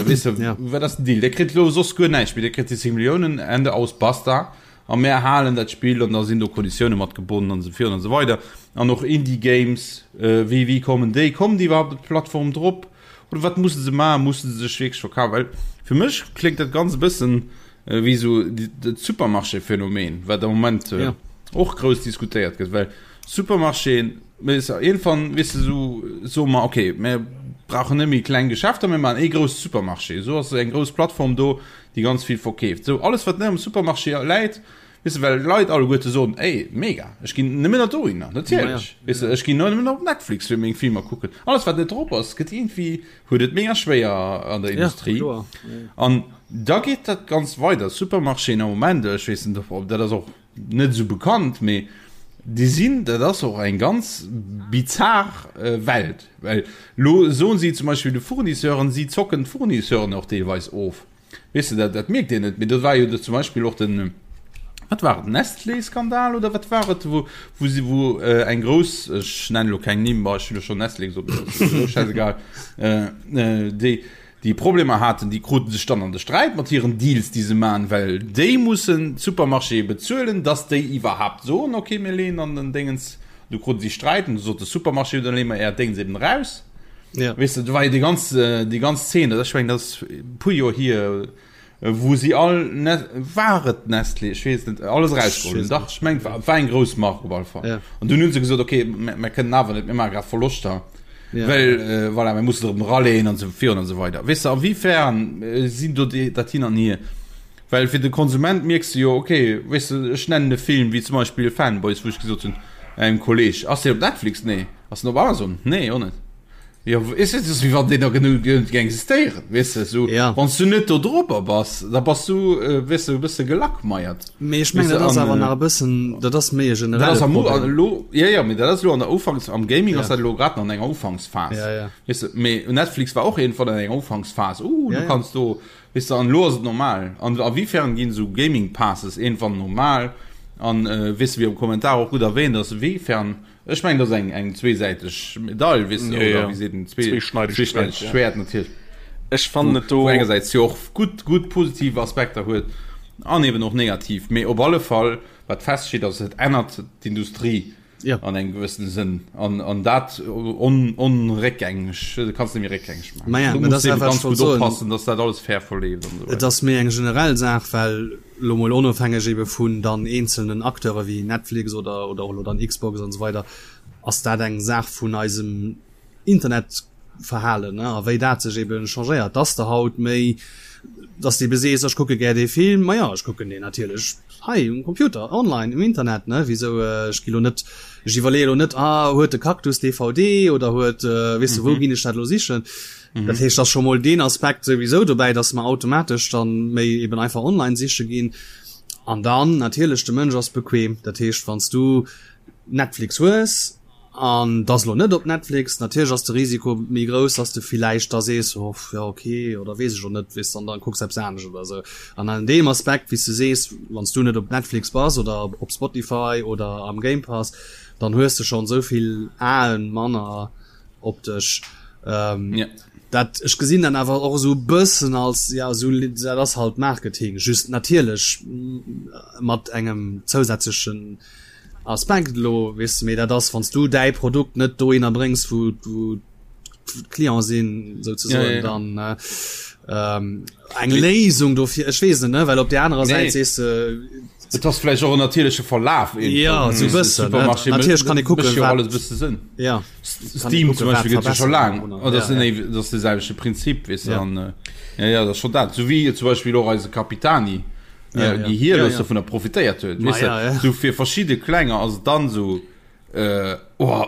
weess de, wat ass den Deal? Dir kritt elo soss guer näischt méi, Dir kritt déi 10 Milliounen, Ende, aus, basta. A mär halen dat Spill an da sinn do Konditioune mat gebonnen an esou virun an esou weider. An och Indie Games, wéi wéi kommen déi? Kommen déi iwwerhaapt op d'Plattform drop? Oder wat musse se maachen? Musse se sech wierklech verkafen? Well fir mech kléngt dat ganz e bëssen wéi esou dat Supermarché-Phänomen, wat am Moment och grouss diskutéiert gëtt. Well Supermarchéen, iergendwann, weess de, esou soe mer, okay, mir brauchen net méi kleng Geschäfter, mir maachen ee grousse Supermarché. Esou ass eng grouss Plattform do, déi ganz vill verkeeft. Sou, alles wat net am Supermarché läit, weess de, well d'Leit alleguerte soen, ey, mega, ech ginn nëmmen nach dohinner, natierlech, weess de, ech ginn nëmmen nach op Netflix fir meng Filmer kucken. Alles wat net drop ass, gëtt iergendwéi, huet et mega schwéier an der Industrie. An da geet dat Ganzt weider. Supermarchéen am Moment, ech weess net, ob dat ass och net esou bekannt, mee déi sinn, dat ass och eng ganz bizar Welt, well lo soen si zum Beispill de Fournisseuren, si zocken d'Fournisseuren och deelweis of. Weess de, dat, dat mierkt een net, mee do war jo zum Beispill och den, wat war et, Nestlé-Skandal oder wat war et, wou, wou si, wou eng grouss, ech nennen elo keng Nimm, ma ech hunn jo schonn Nestlé gesot, mee dat ass elo schäisegal, déi, déi Problemer haten, déi kruten sech dann an de Sträit mat hiren Deals, déi se maachen, well déi mussen d'Supermarchéë bezuelen, dass déi iwwerhaapt soen, okay, mir leeën an den Déngens. Du kruten si Sträit an du sot de Supermarché, dann leeë mer äert Déngens eben eraus. Ja. Weess de, do war jo déi ganz, déi ganz Zeen, dat ass, ech mengen, dat ass e puer Joer hier, wou si all, war et Nestlé, ech weess et net, alles erausgeholl hunn. Dach, ech mengen, war, war eng grouss Mark op alle Fall. Ja. An dunn hu se gesot, okay, mer kënnen awer net, mir maache grad Verloschter. Ja. Well, äh, voilà, mir mussen erëm eraleen an esou virun an esou weider. Weess de, a wéifern sinn do déi, dat hin an hier? Well fir de Konsument mierks de jo, okay, weess de, ech nennen e Film wéi zum Beispill Fanboys, wou ech gesot hunn engem Kolleg, ass deen op Netflix? Nee. Ass den op Amazon? Nee, och net. Jo, is et ass wéi wann deen da genuch géing existéieren, weess de, sou. Ja. Wann s du net do drop bass, da bass du, weess de, e bësse gelackmeiert. Mee ech mengen, dat ass awer nach e bëssen, dat ass méi e generelle Problem. Elo, jo, jo, mee dat ass elo an der Ufanks, am Gaming ass dat elo grad nach an enger Ufanksphas. Ja, ja. Weess de, mee Netflix war och iergendwann an enger Ufanksphas, uh, du kanns do, weess de, an elo ass et normal. An a wéifern ginn esou Gaming Passes iergendwann normal? An, weess de, wéi am Kommentar och gutt erwähnt ass, wéifern Ech mengen, dat ass eng, eng zweesäiteg Medail, weess de, Ja, ja. oder wéi seet een, zwee, Zweeschneideg zweeschneideg Schwäert, ja. Schwäert natierlech. Ech fannen et do. Wou engersäits jo och gutt, gutt positiv Aspekter huet an eben och negativ. Mee op alle Fall, wat feststeet, ass, et ännert d'Industrie Ja. an engem gewëssene Sënn. An, an dat on, onréckgängeg, dat kanns de net méi réckgängeg maachen. Ma ja, Do mä dat muss ass de dat, ebe wat ech ganz wollt gutt soen. oppassen, dass dat alles fair verleeft an esou Et weider. ass méi eng generell Saach, well elo mol onofhängeg ebe vun dann eenzelnen Acteure wéi Netflix oder oder och elo dann Xbox an esou weider, ass dat eng Saach vun eisem Internetverhalen, ne, a wéi dat sech ebe changéiert, dass de haut méi. Dass de ebe sees, ech kucke gär dee Film, ma jo, ech kucken deen natierlech hei um Computer, online, um Internet, ne, wisou, ech gi lo net, ech iwwerleeë lo net, ah, huet de Cactus DVD oder huet, weess de, wou ginn ech dat elo sichen? Dat heescht, ass scho mol deen Aspekt souwisou dobäi, dass mer automatesch dann méi eben einfach online siche ginn. An dann natierlech, de Mënsch ass bequem, dat heescht, wann s du Netflix hues, An et ass elo net op Netflix, natierlech ass de Risiko méi grouss, dass de villäicht da sees, oh jo ok oder weess ech och net, weess an dann kucks eppes anescht oder esou. An an deem Aspekt, wéi s du sees, wann s du net op Netflix bass oder op Spotify oder am Game Pass, dann hues de schonn esou vill Aen manner op dech. Dat, ech gesinn dann awer och esou e bëssen als, ja esou, dat ass halt Marketing, just natierlech mat engem zousätzlechen Aspekt elo, weess de, mee dat ass, wann s du däi Produkt net dohinner bréngs, wou wou d'Clienten sinn, souzesoen, ja, ja. dann äh, ähm, eng Léisung dofir, ech weess net, ne, well op der anerer Säit sees de. Et ass vläicht och en natierleche Verlaf. Ja, sou bëssen, ne? Natierlech kann ee kucken, wat. Alles bësse Sënn. Ja. Steam zum Beispill gëtt jo scho laang. Oh, dat ass dat ass de selwechte Prinzip, weess de, an ja, ja, dat ass scho dat. Sou wéi zum Beispill och eise Capitani. ja, ja. déi hir ja, ja. dovunner profitéiert huet weißt ja, ja. so fir verschiedene klenger ass dann so äh, oh,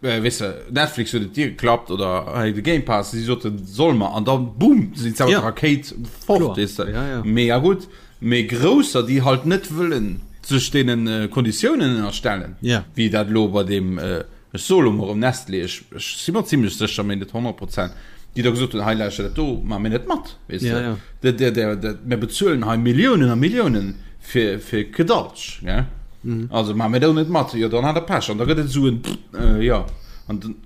äh, weißt du, Netflix huet et dir geklappt oder hey, de Game Pass si soten soll mer an dann boom sinn ja. Rakéit fort weißt du. ja, ja. mega gut méi grousser déi halt net wëllen sech deenen äh, Konditiounen ënnerstellen ja. wéi dat lo bei dem äh, Ech soe lo mol erëm Nestlé, ech, ech si mer zimlech sécher, mee net 100 Prozent, déi da gesot hunn, hei lauschter, dat do maache mir net mat, weess de. Ja, ja. Der, der, der, der, mir bezuelen hei Milliounen a Milliounen fir, fir Kedaltsch, gell. Mhm. Also maache mir do net mat. Jo, dann hat der Pech. An da gëtt et esou en, äh, jo, an dann,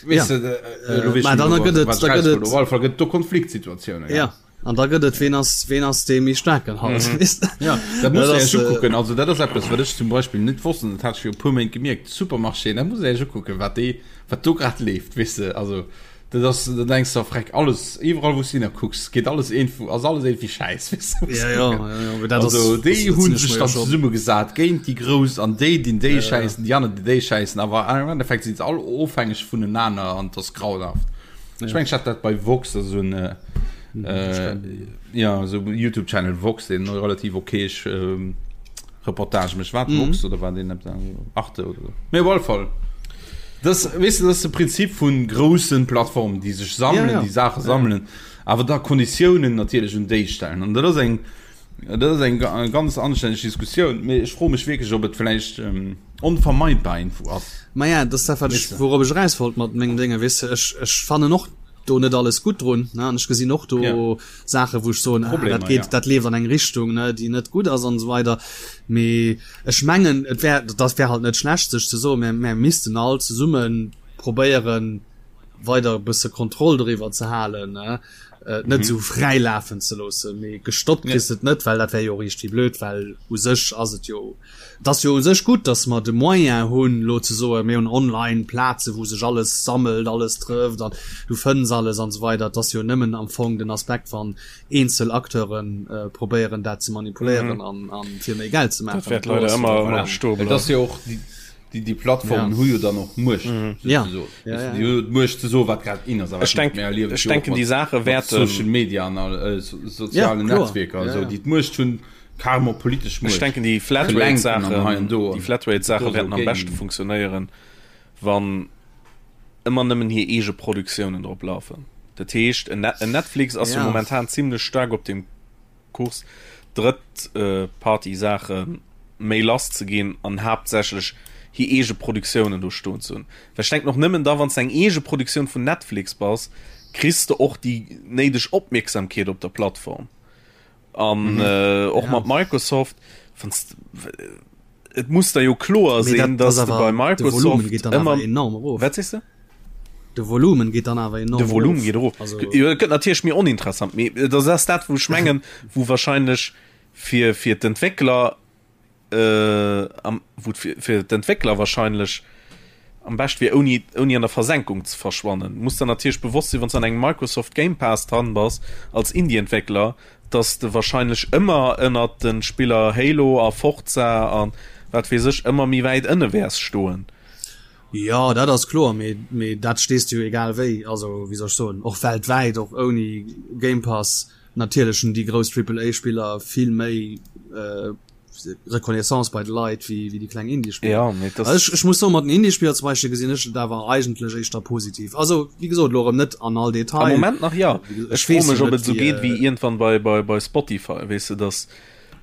weess Ja. de, äh, elo weess Mä ech dann net méi, gëtt et, wat da ech gëtt eraus wollt. et, Op alle Fall gëtt et do Konfliktsituatiounen, gell. ja. An da gëtt et, ween ass, ween ass dee méi staarken halt, weess de. Ja, dat muss Dat een ass, sech ukucken. Also dat ass eppes, wat ech zum Beispill net wosst, an dat hat ech viru puer Méint gemierkt, Supermarchéen, dat muss een sech ukucken, wat déi, wat do grad leeft, weess de. Also dat ass, da denks de, freck, alles, iwwerall wou s de hinnerkucks, geet alles iergendwou, ass alles iergendwéi schäiss, weess de. Ja, ja, ja, ja, mee dat ass, Also déi dat hu sinn ech sech mer jo dann schon. zesummegesat géint déi Grouss an déi dinn déi Ja, ja. schäissen, déi aner déi déi schäissen, awer am Endeffekt sinn se all ofhängeg vunenaner an et ass grauenhaft. Ech mengen, ech hat dat bei Vox, also en äh, ja, so YouTube Channel Vox, den relativ okay ähm, Reportage mech wat mhm. Vox oder war den Arte oder so. Mee op alle Fall. Das, weißt du, das ist de Prinzip vun groussen Plattformen, déi sech sammeln, ja, ja. déi Sache sammeln, ja. awer da Konditiounen natierlech un déi stellen. An dat ass eng Dat ass eng ganz anstänneg Diskussioun, mee ech froe mech wierklech, ob et vläicht onvermeidbar iergendwou ass. Maja, dat ass dat, wat ech, wourop ech eraus wollt mat mengem Déngen, weess de. Ech, ech fannen och do net alles gutt drun, ne, an ech gesinn och do Saachen, wou ech soen, ah, dat geet, dat leeft an eng Richtung, ne, déi net gutt ass an esou weider. Mee ech mengen, et wär, dat wär halt net schlecht, sech ze soen, mir, mir missten all zesumme probéieren, weider e bësse Kontroll doriwwer ze halen, ne. äh, net mhm. so frei lafen ze loossen mee gestoppt ja. et net well dat wär jo richtig blöd well u sech ass et jo das jo u sech gut dass man de moyen hunn lo ze so mir hunn online Plaze wo sech alles sammelt alles trëfft an du fënns alles an so weiter das jo nëmmen am Fong den Aspekt van eenzel Akteuren äh, probéieren dat ze manipuléieren mhm. an, an fir méi Geld ze machen dat leider immer, immer ja. das jo och die Déi, déi Plattformen hu jo dann och Muecht, Ja. souzesoen. Ja, ja, Déi hu d'Muecht ze soen, wat grad in ass a Ech wat net. denk, Mir erliewen et ech jo och denken, déi mat, Saache mat wäerten. Social Media an all, äh, so, sozialen Ja, kloer. Netzwierker an Ja, esou, ja. déi d'Muecht hunn, carrément politesch Ech Muecht denken, déi ze lenken an hei an Flatrate-Saachen, do déi an Flatrate-Saache do esou wäerten am beschte géing. funktionéieren, wann ëmmer nëmmen hir eege Produktiounen drop lafen. Dat heescht, en Net, en Netflix ass jo Ja. momentan zimlech staark op deem Kurs drëtt Party Saache méi lass ze ginn an haaptsächlech hir eege Produktiounen do stoen ze hunn. Well ech denken och nëmmen da wann s de eng eege Produktioun vun Netflix bass, kriss de och déi néideg Opmierksamkeet op der Plattform. An och mat Microsoft, wann s et muss der jo kloer sinn, dass de bei Microsoft ëmmer enorm erof. Wat sees de? De Volumen geet dann awer enorm De Volumen geet erof. Also jo, et gëtt natierlech méi oninteressant, mee dat ass dat, wou ech mengen, wou wahrscheinlech fir fir d'Entwéckler äh, am wou fir fir d'Entwéckler wahrscheinlech am bescht wier ouni ouni an der Versenkung ze verschwannen. Muss der natierlech bewosst sinn, wann s an engem Microsoft Game Pass dran bass als Indie-Entwéckler, dass de wahrscheinlech ëmmer ënnert de Spiller Halo a Forza a wat weess ech ëmmer méi wäit ënne wäers stoen. Jo, dat ass kloer, mee mee dat stees de jo egal wéi, also wéi soll ech soen, och weltwäit, och ouni Game Pass. Natierlech hunn déi grouss Triple-A-Spiller vill méi äh, Reconnaissance bei de Leit wéi, wéi déi kleng Indie-Spiller. Ja, mee das ech, ech muss soen, mat den Indie-Spiller zum Beispill gesinn ech et awer eigentlech éischter positiv. Also, wéi gesot, elo erëm net an all Detail. Am Moment nach ja. Ech Ech froe weess mech, jo ob net, et esou wéi, geet wéi äh, iergendwann bei, bei, bei Spotify, weess de, dass,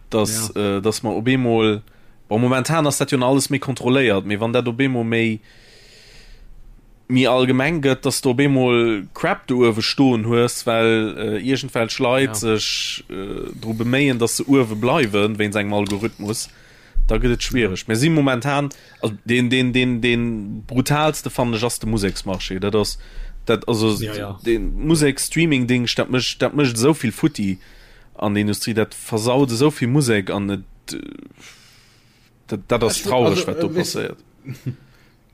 dass, ja. äh, dass mer op eemol, bon, momentan ass dat jo nach alles méi kontrolléiert, mee wann dat op eemol méi, méi allgemeng gëtt, dass de op eemol Crap do uewe stoen hues, well iergendwelch Leit sech dru beméien, dass se uewe bleiwen, wéinst engem Algorithmus, da gëtt et schwiereg. Mir si momentan, also deen, deen, deen, deen brutaalste fannen ech ass de Museksmarché. Dat ass, dat, also dee Musek-Streaming-Dingscht, dat mécht, dat mécht esou vill futti an der Industrie, dat versaut esou vill Musek an et, dat, dat ass traureg, wat do passéiert.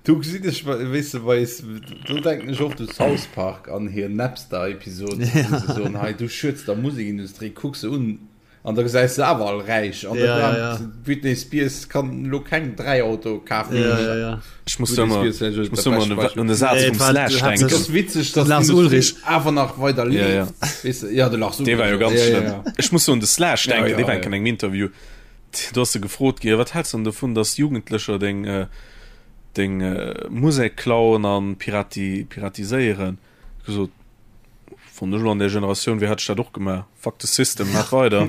Do gesinn ech, weess de, wei s, do denken ech oft u South Park an hir Napster-Episod, wou se soen, hei du schueds der Musekindustrie, kuck se un an da gesäis se awer all räich an Ja, ja, ja. d'Britney Spears kann elo keng 3 Autoe kafen. Ja, ja, ja. Ech muss Britney ëmmer, Spears vläicht ech muss dat ëmmer bescht un de, Beispill. un de Saz Nee, vum et war Slash Et denken. ass witzeg, dass Lars d'Industrie Ulrich. awer nach weider Ja, ja. leeft. Weess de, ja, de Lars Dee war jo Ulrich, ganz ja, ja, schlëmm. ja. Ech muss so un de Slash Ja, denken, ja, dee war ja. enk an engem Interview. Do ass e gefrot gi, wat häls de dann dovun, dass Jugendlecher deng, deng Musek klauen an pirati piratiséieren? Gesot, wann ech elo an där Generatioun wier, hätt ech dat och gemaach. Fuck the system, maach weider.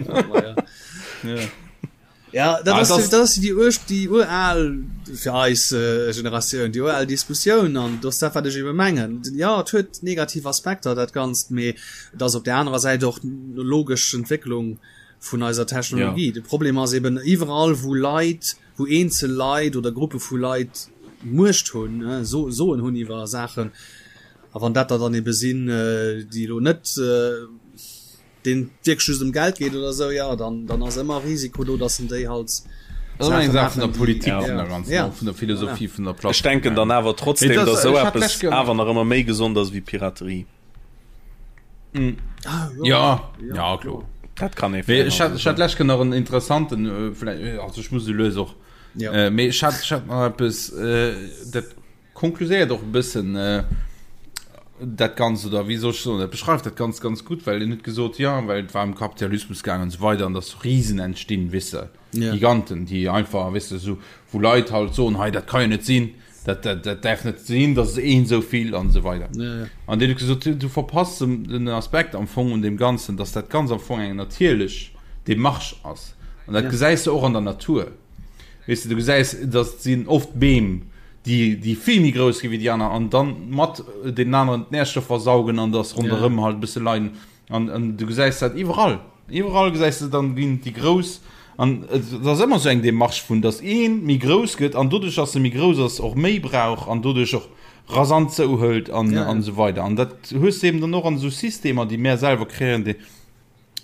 Ja, dat Ah, ass, das- dat ass déi ur déi ural fir eis äh, Generatioun, déi ural Diskussioun an dat ass dat, wat ech ebe mengen. Ja, et huet negativ Aspekter dat Ganzt, mee et ass op der anerer Säit och logesch Entwécklung vun eiser Technologie. Ja. De Problem ass eben iwwerall wou Leit, wou eenzel Leit oder Gruppe vu Leit Muecht hunn, so, Soen hunn iwwer Saachen, a wann dat der dann ebe sinn, déi elo net deen et wierklech just ëm Geld geet oder esou, ja, dann, dann ass ëmmer Risiko do, dass en déi halt Das ass eng Saache Saach vun der maachen, déi, Politik Ja. vun der ganzen, ja, och vun der Philosophie voilà. vun der Ech Plattform. denken dann awer Mee trotzdem, das, dass esou ech hat eppes lech ge awer nach ëmmer méi gesond ass wéi Piraterie. Mm. Ah, Ja, ja, ja, ja, kloer. kloer. Dat kann ee Mee fair ech hat, ech hat lech nach en interessanten, äh, vielleicht, äh, also ech muss lues och, Ja. äh, mee ech hat, ech hat nach eppes, äh, dat konkluséiert och e bëssen äh, dat Ganzt, oder wéi soll ech soen, dat beschreift dat Ganzt ganz gutt, well en huet gesot, ja, well et war ëm Kapitalismus gaangen an esou weider an dass Risen entstinn, weess de, Ja. Giganten, déi einfach, weess de, esou, wou Leit halt soen, hei, dat ka jo net sinn, Dat, dat, dat däerf net sinn, dass een esou vill an esou weider. Ja, ja. An deen huet gesot, du, du verpasst den, den Aspekt am Fong un deem Ganzen, dass dat Ganz am Fong eng natierlech Demarche ass. An dat Ja. gesäis de och an der Natur. Weess de, du gesäis, dass et sinn oft Beem, déi, déi vill méi grouss gi wéi déi aner an dann mat deenen aneren d'Närstoffer saugen an dass ronderëm halt e bësse leiden. An, an du gesäis dat iwwerall. Iwwerall gesäis de dann ginn déi grouss an et ass ëmmer sou eng Demarche vun, datt ee méi grouss gëtt an doduerch, datt e méi grouss ass, och méi brauch an doduerch och rasant zouhëlt an, Ja, ja. an esou weider. An dat hues de eben dann och an esou Systemer, déi mär selwer kreéieren, déi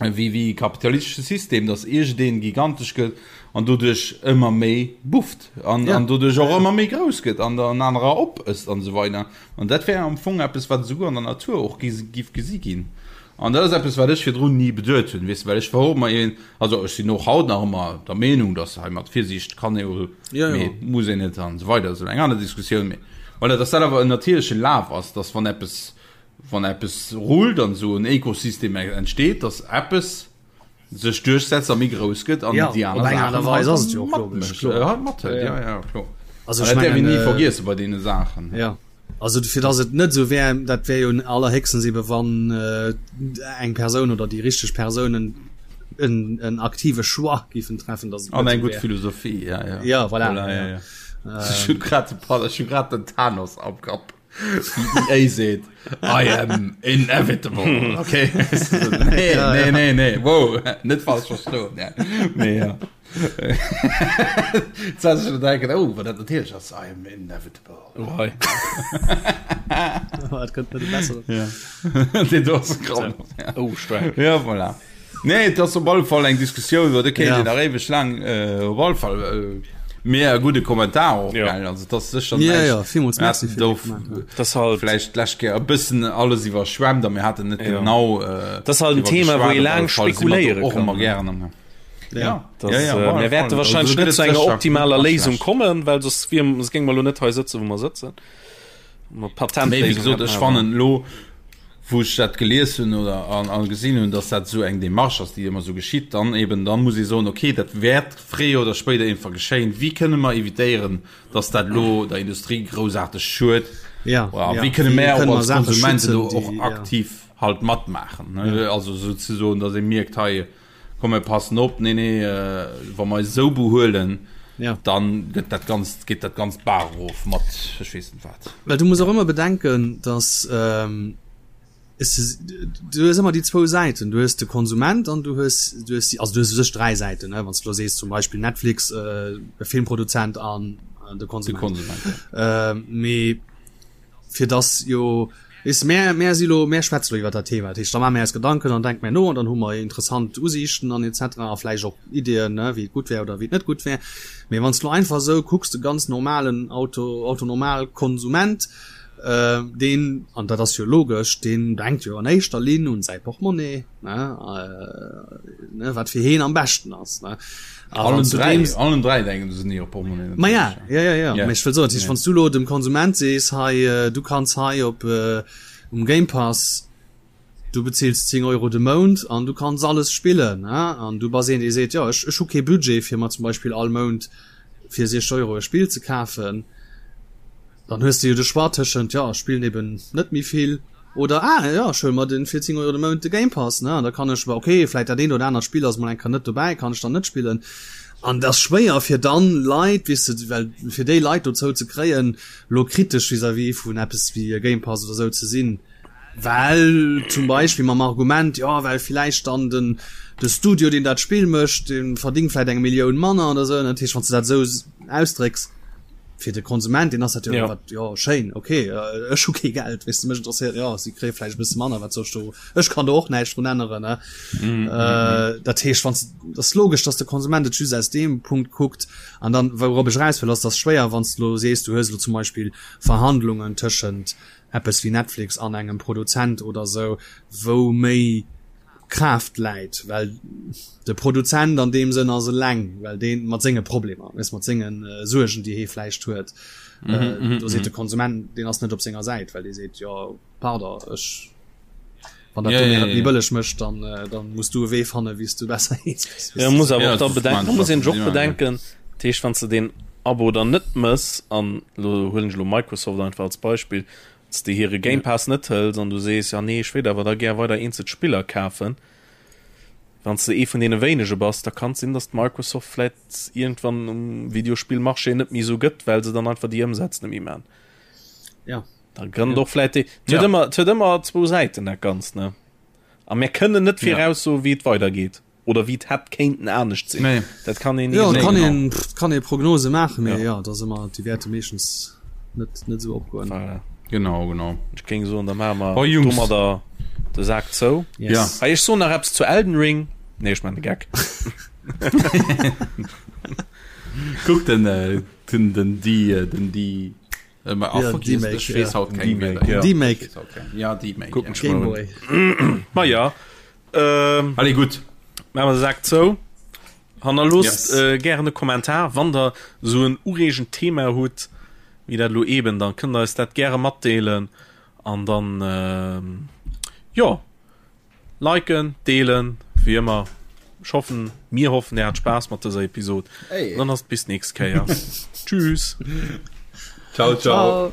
wéi, wéi kapitalistesche System, datt iergendeen gigantesch gëtt an doduerch ëmmer méi bufft an, Ja. an doduerch och Ja, ja. ëmmer méi grouss gëtt an dann anerer opësst an esou weider. An dat wär am Fong eppes, wat esouguer an der Natur och giff gesi ginn. An dat ass eppes, wat ech virdrun ni beduet hunn, weess de, well ech war och ëmmer een, also ech sinn och haut nach ëmmer der Meenung, datt hei mat Virsiicht kann ee jo, mee muss een net an esou weider, dat ass elo eng aner Diskussioun, mee voilà, datt dat awer en natierleche Laf ass, datt wann eppes, wann eppes rullt an esou en Ekosystem entsteet, datt eppes sech duerchsetzt a méi grouss gëtt an ja, déi aner op eng Aart a Weis ass et jo och logesch, kloer. Äh, halt mathëlt, ja, ja, kloer. Also An ech dat däerf een mengen, ni äh, vergiesse bei deene Saachen. Ja. Also fir dass et net esou wär, dat wär jo allerhéchstens ebe wann äh, eng Persoun oder déi richteg Persounen en, en aktive Choix giffen treffen, dass et An net eng esou gutt wär. Philosophie, ja, ja. Ja, voilà, Voilà, ja, ja. ja. Ech hunn grad de Pal, ech hunn grad den Thanos am Kapp. Wéi EA seet, I am inevitable. Okay. Nee, nee, nee, nee. Wow, net falsch verstoen. Ja. Nee, ja. Jetzt hat ich denken, oh, wat dat natierlech ass, I am inevitable. Oh, hei. Dat kënnt net besser. Ja. Den do ass krank. Ja. Oh, stark. Ja, voilà. Nee, et ass op alle Fall eng Diskussioun, iwwer déi kéint Ja. een nach éiweg laang äh, op alle Fall äh, Mee e gudde Kommentar och, Ja. gell? Also, dat ass sécher Ja, näischt. ja, villmools Mir Merci haten fir de do Kommentar. Das ist halt, vläicht d'lescht Kéier e bëssen alles iwwerschwemmt a mir haten net Ja. genau äh, Das ist halt en driwwer Thema, wou geschwat. ee Op laang alle Fall si mer do spekuléiere och kann, ëmmer ne? gären am Ja. Ja, Das, ja, ja, äh, op alle mir wäerte Fall. Also, wahrscheinlech do gëtt net et zu enger sécher optimaler gutt a Léisung schlecht. kommen, well soss wier, soss géinge mer elo net hei sëtzen, wou mer sëtzen. Mer Mee wéi Patentléisung gesot, hätten ech awer. fannen elo. Wou ech dat gelies hunn oder an, an gesinn hunn, dass dat esou eng Démarche ass, déi ëmmer esou geschitt, dann eben, dann muss ee soen, okay, dat wäert fréier oder spéider iergendwa geschéien. Wéi kënne mer evitéieren, dass dat elo der Industrie groussaarteg schued? Ja, Oder ja. wéi kënne Wéi mär kënne och mer als Saache Konsumenten schützen, do déi, och ja. aktiv halt matmaachen, ne? Also souzesoen, dass ee mierkt, hei, komm mir passen op, nee, nee, wa mer eis esou behuelen, ja. dann gëtt dat Ganzt, geet dat Ganzt d'Baach erof mat ech weess net wat. Well du muss och ëmmer bedenken, dass ähm, es, du hues ëmmer déi zwou Säiten, du hues de Konsument an du hues, du hues, also du hues u sech dräi Säiten, ne, wann s du elo sees zum Beispill Netflix, äh, e Filmproduzent an äh, de Konsument. De Konsument, ja. Ähm, mee fir dass jo weess mär mär si lo mär schwätze lo iwwer dat Thema, dat heescht da maache mär eis Gedanken an denke mär no an dann hu mer interessant Usiichten an et cetera a vläicht och Ideeën ne wéi et gutt wär oder wéi et net gutt wär. Mee wann s de lo einfach esou kucks, de ganz normalen Auto Autonormalkonsument, deen, an dat ass jo logesch, deen denkt jo an éischter Linn un säi Portmonnaie ne, ne wat fir heen am beschten ass ne. Allen dräi, allen dräi denken se un hir Portmonnaie. Ma ja, ja, ja, ja. Mee ech wëll soen, dat heescht, wann s du elo dem Konsument sees, hei, du kanns hei op um Game Pass, du bezils 10 Euro de Mount an du kanns alles spillen, ne, an du bass een, dee seet, jo, ech, ech hu kee Budget, fir mer zum Beispill all Mount fir 60 Euro e Spill ze kafen, Dann hues de jo de Choix tëschent, jo ech spillen eben net méi vill oder ah jo ech huele mer den fir 10 Euro de Mount de Game Pass ne an da kann ech, ok vläit dat eent oder anert Spill ass mol eng Kéier net dobäi, kann ech dann net spillen. An et ass schwéier fir dann Leit, weess de, well fir déi Leit dozou ze kréien lo kritesch vis-à-vis vun eppes wéi e Game Pass oder sou ze sinn, well zum Beispill mam Argument, jo well villäicht dann den de Studio deen dat Spill mécht, dee verdingt vläit eng Millioun manner oder sou. Dat heescht wann s de dat esou ausdrécks, fir de Konsument deen ass dat jo ja. wat ja schéin okay äh, ech hu kee Geld weess de mech interesséiert ja si kréie vläicht e bësse manner wat soll ech do ech kann do och näischt drun änneren ne mm, äh, mm, dat heescht wann dat ass logesch dass de Konsument et just aus deem Punkt kuckt an dann wourop ech eraus wëll ass dass schwéier wann s de lo sees du hues lo zum Beispill Verhandlungen tëschent eppes wéi Netflix an engem Produzent oder sou wou méi Kraaft läit, well de Produzent an deem Sënn ass eleng, well deen mat senge Problemer, weess, mat senge Suergen, déi hee vläicht huet, do seet de Konsument, deen ass net op senger Säit, well dee seet, jo pardon, ech, wann dat do mir et méi bëlleg mécht, dann, dann muss du e Wee fannen, wéi s du besser eens gëss. Jo, muss awer och da bedenken, da muss een sech och bedenken, dat heescht, wann s de deen Abo dann net mëss, an elo huelen ech elo Microsoft einfach als Beispill, s de hire Game Pass net hëls an du sees, ja nee, ech wéilt awer da gär weider eenzel Spiller kafen, wann s de ee vun deene wéinege bass, da kann et sinn, datt Microsoft vläit iergendwann um Videospillmarché net méi esou gëtt, well se dann einfach déi Ëmsätz net méi man. Ja. Da kënnt och vläit déi. Et huet ëmmer, et huet ëmmer zwou Säiten dat Ganzt, ne? A mir kënnen net viraussoen, wéi et weidergeet. Oder wéi et hätt kéinten anescht sinn. Nee. Dat kann een ni Ja, soen. kann een, pff, kann ee Prognose maachen, mee ja, dat ass ëmmer, déi wäerte meeschtens net, net esou opgoen. Voilà. Genau, genau. Ech géing soen, da maache mer Oh, Jungs. domadder de Sak zou. Yes. Ja. Hei, ech soen nach eppes zu Elden Ring. Nee, ech maachen de Geck. Kuck den, äh, den, den, die, äh, den, die, äh, ma, ah, Ja, fuck, yes, D-Make, ech weess ja. haut keng D-Make, Wierder. ja. D-Make. Ech weess haut keng. Ja, D-Make, Kucken ja. ech mal un. Gameboy. Ma ja. Ähm, Allez, gutt. Maache mer de Sak zou. Hannerloosst Yes. äh, gären e Kommentar, wann der sou en ureegend Thema hutt, wéi dat elo eben, dann kënnt der eis dat gäre matdeelen an dann ähm, jo, liken, deelen, wéi ëmmer. Ech hoffen, mir hoffen, dir hat Spaass mat dëser Episod. Hey. Dann ass et bis nächst Kéier. Tschüss. Ciao, ciao. Ciao.